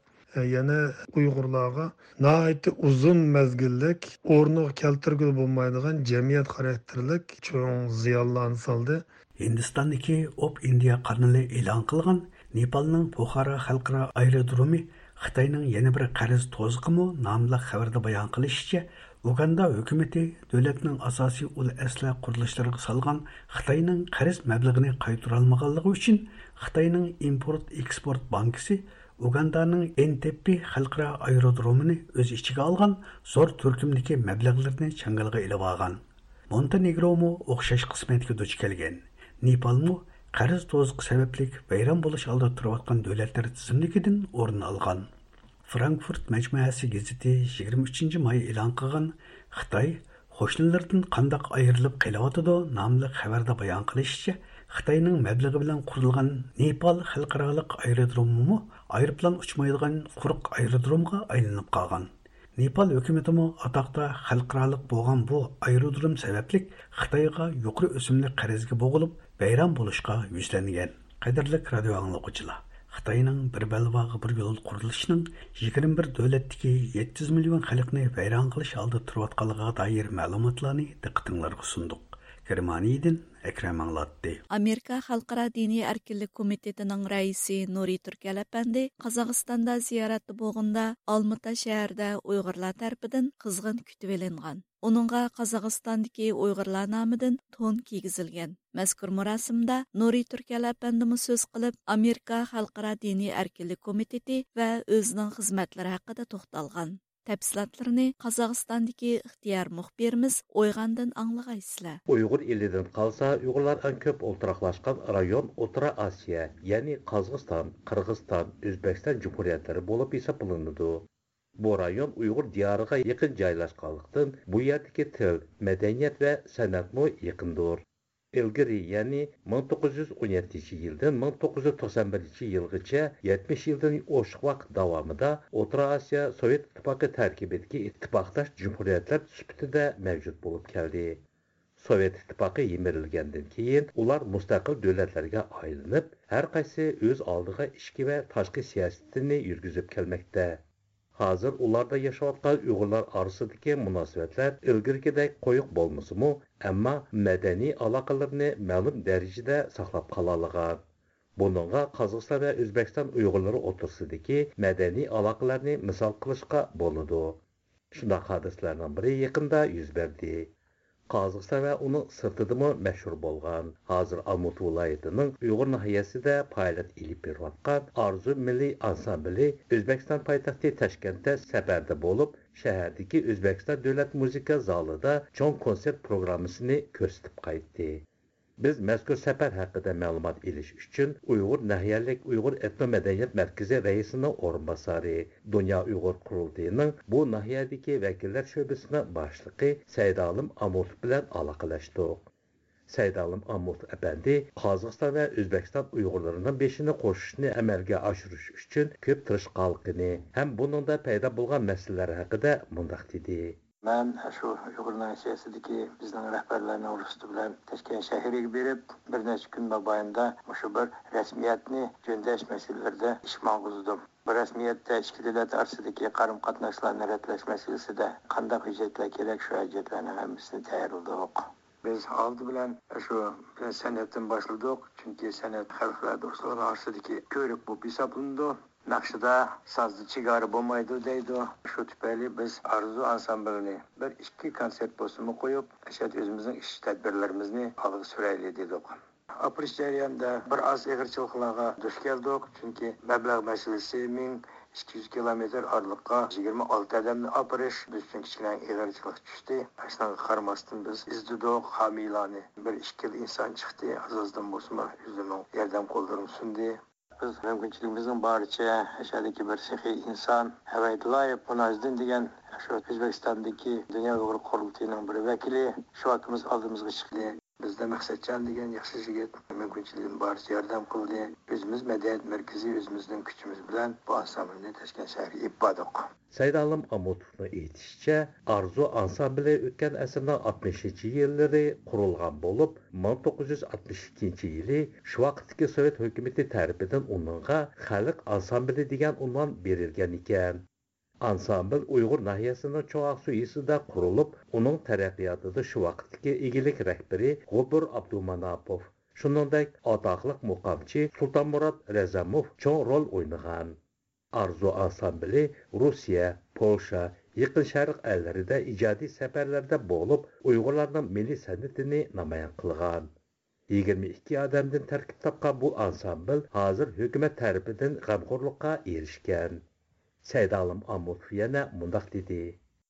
يەنە ئۇيغۇرلارغا ناھايىتى ئۇزۇن مەزگىللىك ئورنىغا كەلتۈرگىلى بولمايدىغان جەمئىيەت خاراكتېرلىك چوڭ زىيانلارنى سالدى. ھىندىستاندىكى ئوپ ئىندىيا قانىلى ئېلان قىلغان نېپالنىڭ پوخارا خەلقئارا ئايرودرومى خىتاينىڭ يەنە بىر قەرز توزىقىمۇ ناملىق خەۋەردە بايان قىلىشىچە، ئۇگاندا ھۆكۈمىتى دۆلەتنىڭ ئاساسىي ئۇل ئەسلىھە قۇرۇلۇشلىرىغا سالغان خىتاينىڭ قەرز مەبلىغىنى قايتۇرالمىغانلىقى ئۈچۈن خىتاينىڭ ئىمپورت ئېكسپورت بانكىسى ئۇگاندانىڭ ئېنتېببى خەلقئارا ئايرودرومىنى ئۆز ئىچىگە ئالغان زور تۈركۈمدىكى مەبلەغلىرىنى چاڭگىلىغا ئېلىۋالغان. مونتېنېگرومۇ ئوخشاش قىسمەتكە دۇچ كەلگەن. نېپالمۇ قەرز توزۇقى سەۋەبلىك ۋەيران بولۇش ئالدىدا تۇرۇۋاتقان دۆلەتلەر تىزىملىكىدىن ئورۇن ئالغان. فرانكفۇرت مەجمۇئەسى گېزىتى يىگىرمە ئۈچىنچى ماي ئېلان قىلغان خىتاي قوشنىلىرىدىن قانداق ئايرىلىپ قېلىۋاتىدۇ ناملىق خەۋەردە بايان قىلىشىچە، خىتاينىڭ مەبلىغى بىلەن قۇرۇلغان نېپال خەلقئارالىق ئايرودرومىمۇ ئايروپىلان ئۇچمايدىغان قۇرۇق ئايرودرومغا ئايلىنىپ قالغان. نېپال ھۆكۈمىتىمۇ ئاتاقتا خەلقئارالىق بولغان بۇ ئايرودروم سەۋەبلىك خىتايغا يۇقىرى ئۆسۈملۈك قەرزگە بوغۇلۇپ، ۋەيران بولۇشقا يۈزلەنگەن. قەدىرلىك رادىيو ئاڭلىغۇچىلار، خىتاينىڭ بىر بەلباغ بىر يول قۇرۇلۇشىنىڭ يىگىرمە بىر دۆلەتتىكى يەتتە يۈز مىليون خەلقنى ۋەيران قىلىش ئالدىدا تۇرۇۋاتقانلىقىغا دائىر مەلۇماتلارنى دىققىتىڭلارغا سۇندۇق. گېرمانىيەدىن ئەكرەم ئاڭلاتتى. ئامېرىكا خەلقئارا دىنىي ئەركىنلىك كومىتېتىنىڭ رەئىسى نۇرى تۈركەل ئەپەندى قازاقىستاندا زىيارەتتە بولغىنىدا، ئالمۇتا شەھىرىدە ئۇيغۇرلار تەرىپىدىن قىزغىن كۈتۈۋېلىنغان. ئۇنىڭغا قازاقىستاندىكى ئۇيغۇرلار نامىدىن تون كىيگۈزۈلگەن. مەزكۇر مۇراسىمدا نۇرى تۈركەل ئەپەندىمۇ سۆز قىلىپ، ئامېرىكا خەلقئارا دىنىي ئەركىنلىك كومىتېتى ۋە ئۆزىنىڭ خىزمەتلىرى ھەققىدە توختالغان. تەپسىلاتلىرىنى قازاقىستاندىكى ئىختىيار مۇخبىرىمىز ئويغاندىن ئاڭلىغايسىلەر. ئۇيغۇر ئېلىدىن قالسا، ئۇيغۇرلار ئەڭ كۆپ ئولتۇراقلاشقان رايون ئوتتۇرا ئاسىيا، يەنى قازاقىستان، قىرغىزىستان، ئۆزبېكىستان جۇمھۇرىيەتلىرى بولۇپ ھېسابلىنىدۇ. بۇ رايون ئۇيغۇر دىيارىغا يېقىن جايلاشقانلىقتىن، بۇ يەردىكى تىل، مەدەنىيەت ۋە سەنئەتمۇ يېقىندۇر. ئىلگىرى، يەنى مىڭ توققۇز يۈز ئون يەتتىنچى يىلدىن مىڭ توققۇز يۈز توقسان بىرىنچى يىلغىچە يەتمىش يىلدىن ئوشۇق ۋاقىت داۋامىدا ئوتتۇرا ئاسىيا سوۋېت ئىتتىپاقى تەركىبىدىكى ئىتتىپاقداش جۇمھۇرىيەتلەر سۈپىتىدە مەۋجۇت بولۇپ كەلدى. سوۋېت ئىتتىپاقى يىمىرىلگەندىن كېيىن، ئۇلار مۇستەقىل دۆلەتلەرگە ئايلىنىپ، ھەر قايسى ئۆز ئالدىغا ئىچكى ۋە تاشقى سىياسىتىنى يۈرگۈزۈپ كەلمەكتە. ھازىر ئۇلاردا ياشاۋاتقان ئۇيغۇرلار ئارىسىدىكى مۇناسىۋەتلەر ئىلگىرىكىدەك قويۇق بولمىسىمۇ، ئەمما مەدەنىي ئالاقىلىرىنى مەلۇم دەرىجىدە ساقلاپ قالالىغان. بۇنىڭغا قازاقىستان ۋە ئۆزبېكىستان ئۇيغۇرلىرى ئوتتۇرىسىدىكى مەدەنىي ئالاقىلەرنى مىسال قىلىشقا بولىدۇ. شۇنداق ھادىسىلەرنىڭ بىرى يېقىندا يۈز بەردى. قازاقىستان ۋە ئۇنىڭ سىرتىدىمۇ مەشھۇر بولغان، ھازىر ئالمۇتا ۋىلايىتىنىڭ ئۇيغۇر ناھىيەسىدە پائالىيەت ئېلىپ بېرىۋاتقان ئارزۇ مىللىي ئانسامبىلى ئۆزبېكىستان پايتەختى تاشكەنتتە سەپەردە بولۇپ، شەھەردىكى ئۆزبېكىستان دۆلەت مۇزىكا زالىدا چوڭ كونسېرت پروگراممىسىنى كۆرسىتىپ قايتتى. بىز مەزكۇر سەپەر ھەققىدە مەلۇمات ئېلىش ئۈچۈن ئۇيغۇر ناھىيەلىك ئۇيغۇر ئېتنو مەدەنىيەت مەركىزى رەئىسىنىڭ ئورۇنباسارى، دۇنيا ئۇيغۇر قۇرۇلتىيىنىڭ بۇ ناھىيەدىكى ۋەكىللەر شۆبىسىنىڭ باشلىقى سەيدالىم ئامۇتوف بىلەن ئالاقىلەشتۇق. سەيدالىم ئامۇتوف ئەپەندى قازاقىستان ۋە ئۆزبېكىستان ئۇيغۇرلىرىنىڭ بېشىنى قوشۇشنى ئەمەلگە ئاشۇرۇش ئۈچۈن كۆپ تىرىشقانلىقىنى ھەم بۇنىڭدا پەيدا بولغان مەسىلىلەر ھەققىدە مۇنداق دېدى. مەن شۇ ئۇيغۇر ناھىيەسىدىكى بىزنىڭ رەھبەرلەرنىڭ رۇخسىتى بىلەن تاشكەنت شەھىرىگە بېرىپ، بىر نەچچە كۈن مابەينىدە مۇشۇ بىر رەسمىيەتنى جۆندەش مەسىلىلىرىدە ئىش ماڭغۇزدۇم. بۇ رەسمىيەتتە ئىككى دۆلەت ئارىسىدىكى قارىمۇ قاتناشلارنى رەتلەش مەسىلىسىدە قانداق ھۆججەتلەر كېرەك، شۇ ھۆججەتلەرنىڭ ھەممىسىنى تەييارلىدۇق. بىز ئالدى بىلەن شۇ سەنئەتتىن باشلىدۇق، چۈنكى سەنئەت خەلقلەر دوستلۇقى ئارىسىدىكى كۆۋرۈك بولۇپ ھېسابلىنىدۇ. ناخشىدا، سازدا چېگرا بولمايدۇ دەيدۇ. شۇ تۈپەيلى بىز ئارزۇ ئانسامبىلىنى بىر ئىككى كونسېرت بولسىمۇ قويۇپ، ئەشەدە ئۆزىمىزنىڭ ئىش تەدبىرلىرىمىزنى ئالغا سۈرەيلى دېدۇق. ئاپىرىش جەريانىدا بىر ئاز ئېغىرچىلىقلارغا دۇچ كەلدۇق، چۈنكى مەبلەغ مەسىلىسى، مىڭ ئىككى يۈز كىلومېتىر ئارىلىققا يىگىرمە ئالتە ئادەمنى ئاپىرىش بىز ئۈچۈن كىچىككىنە ئېغىرچىلىق چۈشتى. شۇنىڭغا قارىماستىن، بىز ئىزدىدۇق، ھامىيلارنى، بىر ئىككىلا ئىنسان چىقتى، ئاز-ئازدىن بولسىمۇ ئۆزلىرىنىڭ ياردەم قوللىرىنى سۇندى. بىز مۇمكىنچىلىكىمىزنىڭ بارىچە ئەشەدىكى بىر سېخىي ئىنسان ھەۋەيدۇلايېف مۇناجىدىن دېگەن شۇ ئۆزبېكىستاندىكى دۇنيا ئۇيغۇر قۇرۇلتىيىنىڭ بىر ۋەكىلى شۇ ئاكىمىز ئالدىمىزغا چىقتى. بىزدە مەقسەتجان دېگەن ياخشى يىگىت مۇمكىنچىلىكىنىڭ بارىچە ياردەم قىلدى. ئۆزىمىز مەدەنىيەت مەركىزى ئۆزىمىزنىڭ كۈچىمىز بىلەن بۇ ئانسامبىلنى تاشكەنت شەھىرىگە ئېلىپ باردۇق. سەيدالىم ئامۇتوفنىڭ ئېيتىشىچە، ئارزۇ ئانسامبىلى ئۆتكەن ئەسىرنىڭ ئاتمىشىنچى يىللىرى قۇرۇلغان بولۇپ، مىڭ توققۇز يۈز ئاتمىش ئىككىنچى يىلى شۇ ۋاقىتتىكى سوۋېت ھۆكۈمىتى تەرىپىدىن ئۇنىڭغا خەلق ئانسامبىلى دېگەن ئۇنۋان بېرىلگەن ئىكەن. ئانسامبىل ئۇيغۇر ناھىيەسىنىڭ چوڭ ئاقسۇ يېزىسىدا قۇرۇلۇپ، ئۇنىڭ تەرەققىياتىدا شۇ ۋاقىتتىكى ئىگىلىك رەھبىرى غوپۇر ئابدۇماناپوف، شۇنىڭدەك ئاتاقلىق مۇقامچى سۇلتانمۇرات رەزەموف چوڭ رول ئوينىغان. ئارزۇ ئانسامبىلى روسىيە، پولشا، يېقىن شەرق ئەللىرىدە ئىجادىي سەپەرلەردە بولۇپ، ئۇيغۇرلارنىڭ مىللىي سەنئىتىنى نامايان قىلغان. يىگىرمە ئىككى ئادەمدىن تەركىب تاپقان بۇ ئانسامبىل ھازىر ھۆكۈمەت تەرىپىدىن غەمخورلۇققا ئېرىشكەن. سەيدالىم ئامۇتوف يەنە مۇنداق دېدى.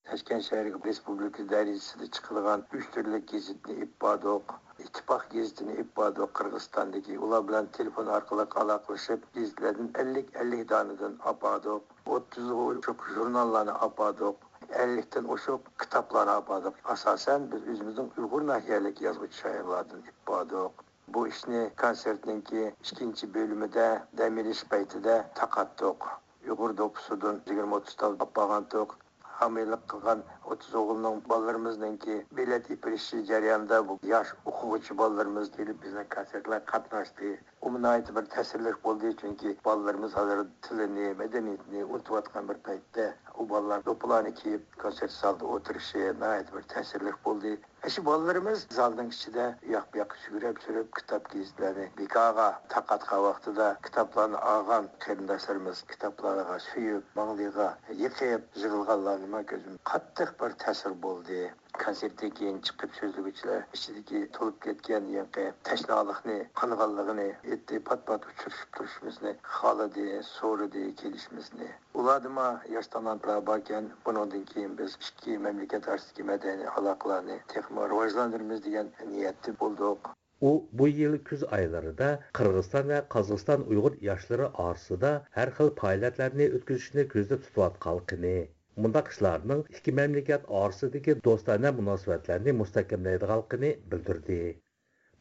تاشكەنت شەھىرىگە رېسپۇبلىكا دەرىجىسىدە چىقىدىغان ئۈچ تۈرلۈك گېزىتنى ئېلىپ باردۇق. ئىتتىپاق گېزىتىنى ئېلىپ باردۇق قىرغىزىستاندىكى. ئۇلار بىلەن تېلېفون ئارقىلىق ئالاقىلىشىپ، گېزىتلەردىن ئەللىك، ئەللىك دانىدىن ئاپاردۇق. ئوتتۇزغا ئوشۇق ژۇرناللارنى ئاپاردۇق. ئەللىكتىن ئوشۇق كىتابلارنى ئاپاردۇق. ئاساسەن، بىز ئۆزىمىزنىڭ ئۇيغۇر ناھىيەلىك يازغۇچى شائىرلاردىن ئېلىپ باردۇق. بۇ ئىشنى كونسېرتنىڭكى ئىككىنچى بۆلۈمىدە دەم ئېلىش پەيتىدە تارقاتتۇق. ئۇيغۇر دوپپىسىدىن يىگىرمە ئوتتۇز تال ئاپارغانتۇق. ھامىيلىق قىلغان ئوتتۇز ئوغۇلنىڭ، بالىلىرىمىزنىڭكى بېلەت ئېپىرىشى جەريانىدا بۇ ياش ئوقۇغۇچى بالىلىرىمىز كېلىپ بىزنىڭ كونسېرتلارغا قاتناشتى. ئۇمۇ ناھايىتى بىر تەسىرلىك بولدى، چۈنكى بالىلىرىمىز ھازىر تىلىنى، مەدەنىيىتىنى ئۇنتۇۋاتقان بىر پەيتتە، ئۇ بالىلار دوپپىلارنى كىيىپ كونسېرت زالىدا ئولتۇرۇشى ناھايىتى بىر تەسىرلىك بولدى. ئاشۇ بالىلىرىمىز زالنىڭ ئىچىدە ئۇياق-بۇياققا سۈگۈرۈپ سۈرۈپ كىتاب گېزىتلەرنى بىكارغا تارقاتقان ۋاقتىدا، كىتابلارنى ئالغان قېرىنداشلىرىمىز كىتابلارغا سۆيۈپ، ماڭلىرىغا يېقىپ يىغلىغانلارنى مەن كۆردۈم. قاتتىق بىر تەسىر بولدى. كونسېرتتىن كېيىن چىقىپ سۆزلىگۈچىلەر ئىچىدىكى تولۇپ كەتكەن يېڭىكى تەشنالىقنى، قانىغانلىقىنى ئېيتتى، پات-پات ئۇچرىشىپ تۇرۇشىمىزنى خالىدى، سورىدى كېلىشىمىزنى. ئۇلاردىمۇ ياش تالانتلار باركەن، بۇنىڭدىن كېيىن بىز ئىككى مەملىكەت ئارىسىدىكى مەدەنىي ئالاقىلارنى تېخىمۇ راۋاجلاندۇرىمىز دېگەن نىيەتتە بولدۇق. ئۇ بۇ يىل كۈز ئايلىرىدا قىرغىزىستان ۋە قازاقىستان ئۇيغۇر ياشلىرى ئارىسىدا ھەر خىل پائالىيەتلەرنى ئۆتكۈزۈشنى كۆزدە تۇتۇۋاتقانلىقىنى، مۇنداق ئىشلارنىڭ ئىككى مەملىكەت ئارىسىدىكى دوستانە مۇناسىۋەتلەرنى مۇستەھكەملەيدىغانلىقىنى بىلدۈردى.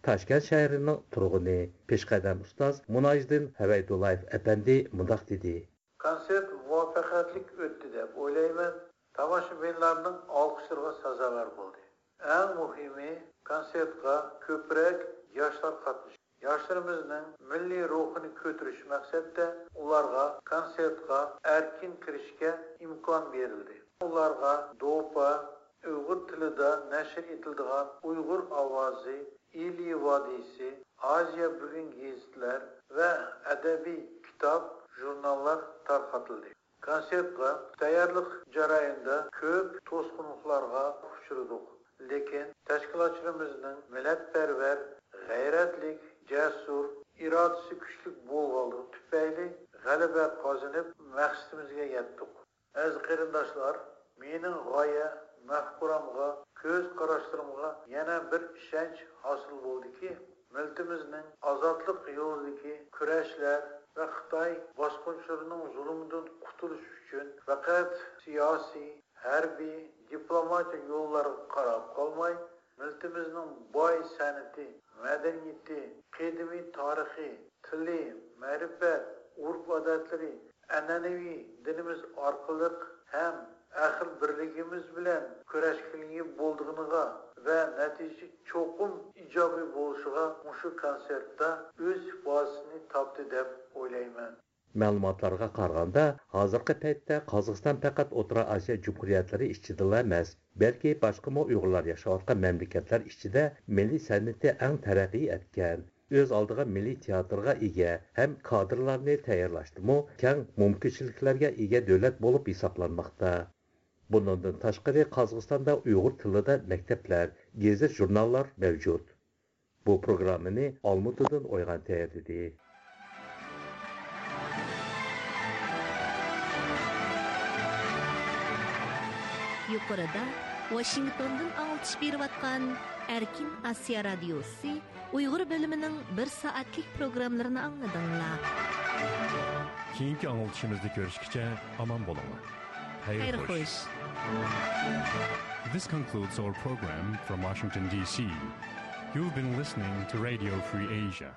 تاشكەنت شەھىرىنىڭ تۇرغۇنى، پېشقەدەم ئۇستاز مۇناجىدىن ھەۋەيدۇللايېف ئەپەندى مۇنداق دېدى. كونسېرت مۇۋەپپەقىيەتلىك ئۆتتى دەپ ئويلايمەن. تاماشىبىنلارنىڭ ئالقىشلىرىغا سازاۋەر بولدى. ئەڭ مۇھىمى، كونسېرتقا كۆپرەك ياشلار قاتنىشىپ، ياشلىرىمىزنىڭ مىللىي روھىنى كۆتۈرۈش مەقسەتتە ئۇلارغا كونسېرتقا ئەركىن كىرىشكە ئىمكان بېرىلدى. ئۇلارغا دوپا، ئۇيغۇر تىلىدا نەشر ئېتىلىدىغان ئۇيغۇر ئاۋازى، ئىلى ۋادىسى، ئازىيا بۈگۈن گېزىتلەر ۋە ئەدەبىي كىتاب، ژۇرناللار تارقىتىلدى. كونسېرتقا تەييارلىق جەريانىدا كۆپ توسقۇنلۇقلارغا ئۇچرىدۇق، لېكىن تەشكىلاتچىلىرىمىزنىڭ مىللەتپەرۋەر، غەيرەتلىك، جەسۇر، ئىرادىسى كۈچلۈك بولغانلىقى تۈپەيلى غەلىبە قازىنىپ، مەقسىتىمىزگە يەتتۇق. ئەزىز قېرىنداشلار، مېنىڭ غايە مەفكۇرەمغا، كۆز قاراشلىرىمغا يەنە بىر ئىشەنچ ھاسىل بولدىكى، مىللىتىمىزنىڭ ئازادلىق يولىدىكى كۈرەشلەر ۋە خىتاي باسقۇنچىلىرىنىڭ زۇلۇمىدىن قۇتۇلۇش ئۈچۈن پەقەت سىياسىي، ھەربىي، دىپلوماتىك يوللارغا قاراپ قالماي، مىللىتىمىزنىڭ باي سەنئىتى، مەدەنىيىتى، قەدىمىي تارىخى، تىلى، مەرىپەت، ئۆرپ-ئادەتلىرى، ئەنئەنىۋى دىنىمىز ئارقىلىق ھەم ئەقىل بىرلىكىمىز بىلەن كۈرەشكىلىگە بولىدىغىنىغا ۋە نەتىجە چوقۇم ئىجابىي بولۇشىغا مۇشۇ كونسېرتتا ئۆز ئىپادىسىنى تاپتى دەپ ئويلايمەن. مەلۇماتلارغا قارىغاندا، ھازىرقى پەيتتە قازاقىستان پەقەت ئوتتۇرا ئاسىيا جۇمھۇرىيەتلىرى ئىچىدىلا ئەمەس، بەلكى باشقىمۇ ئۇيغۇرلار ياشاۋاتقان مەملىكەتلەر ئىچىدە مىللىي سەنئىتى ئەڭ تەرەققىي ئەتكەن، ئۆز ئالدىغا مىللىي تىياتىرغا ئىگە ھەم كادىرلارنى تەييارلاشتىمۇ كەڭ مۇمكىنچىلىكلەرگە ئىگە دۆلەت بولۇپ ھېسابلانماقتا. بۇنىڭدىن تاشقىرى، قازاقىستاندا ئۇيغۇر تىلىدا مەكتەپلەر، گېزىت-ژۇرناللار مەۋجۇت. بۇ پروگراممىنى ئالمۇتىدىن ئويغان تەييارلىدى. يۇقىرىدا ۋاشىنگتوندىن ئاڭلىتىش بېرىۋاتقان ئەركىن ئاسىيا رادىيوسى ئۇيغۇر بۆلۈمىنىڭ بىر سائەتلىك پروگراممىلىرىنى ئاڭلىدىڭلار. كېيىنكى ئاڭلىتىشىمىزدا كۆرۈشكىچە ئامان بولۇڭلار. خەير خوش. This concludes our program from Washington, D C. You've been listening to Radio Free Asia.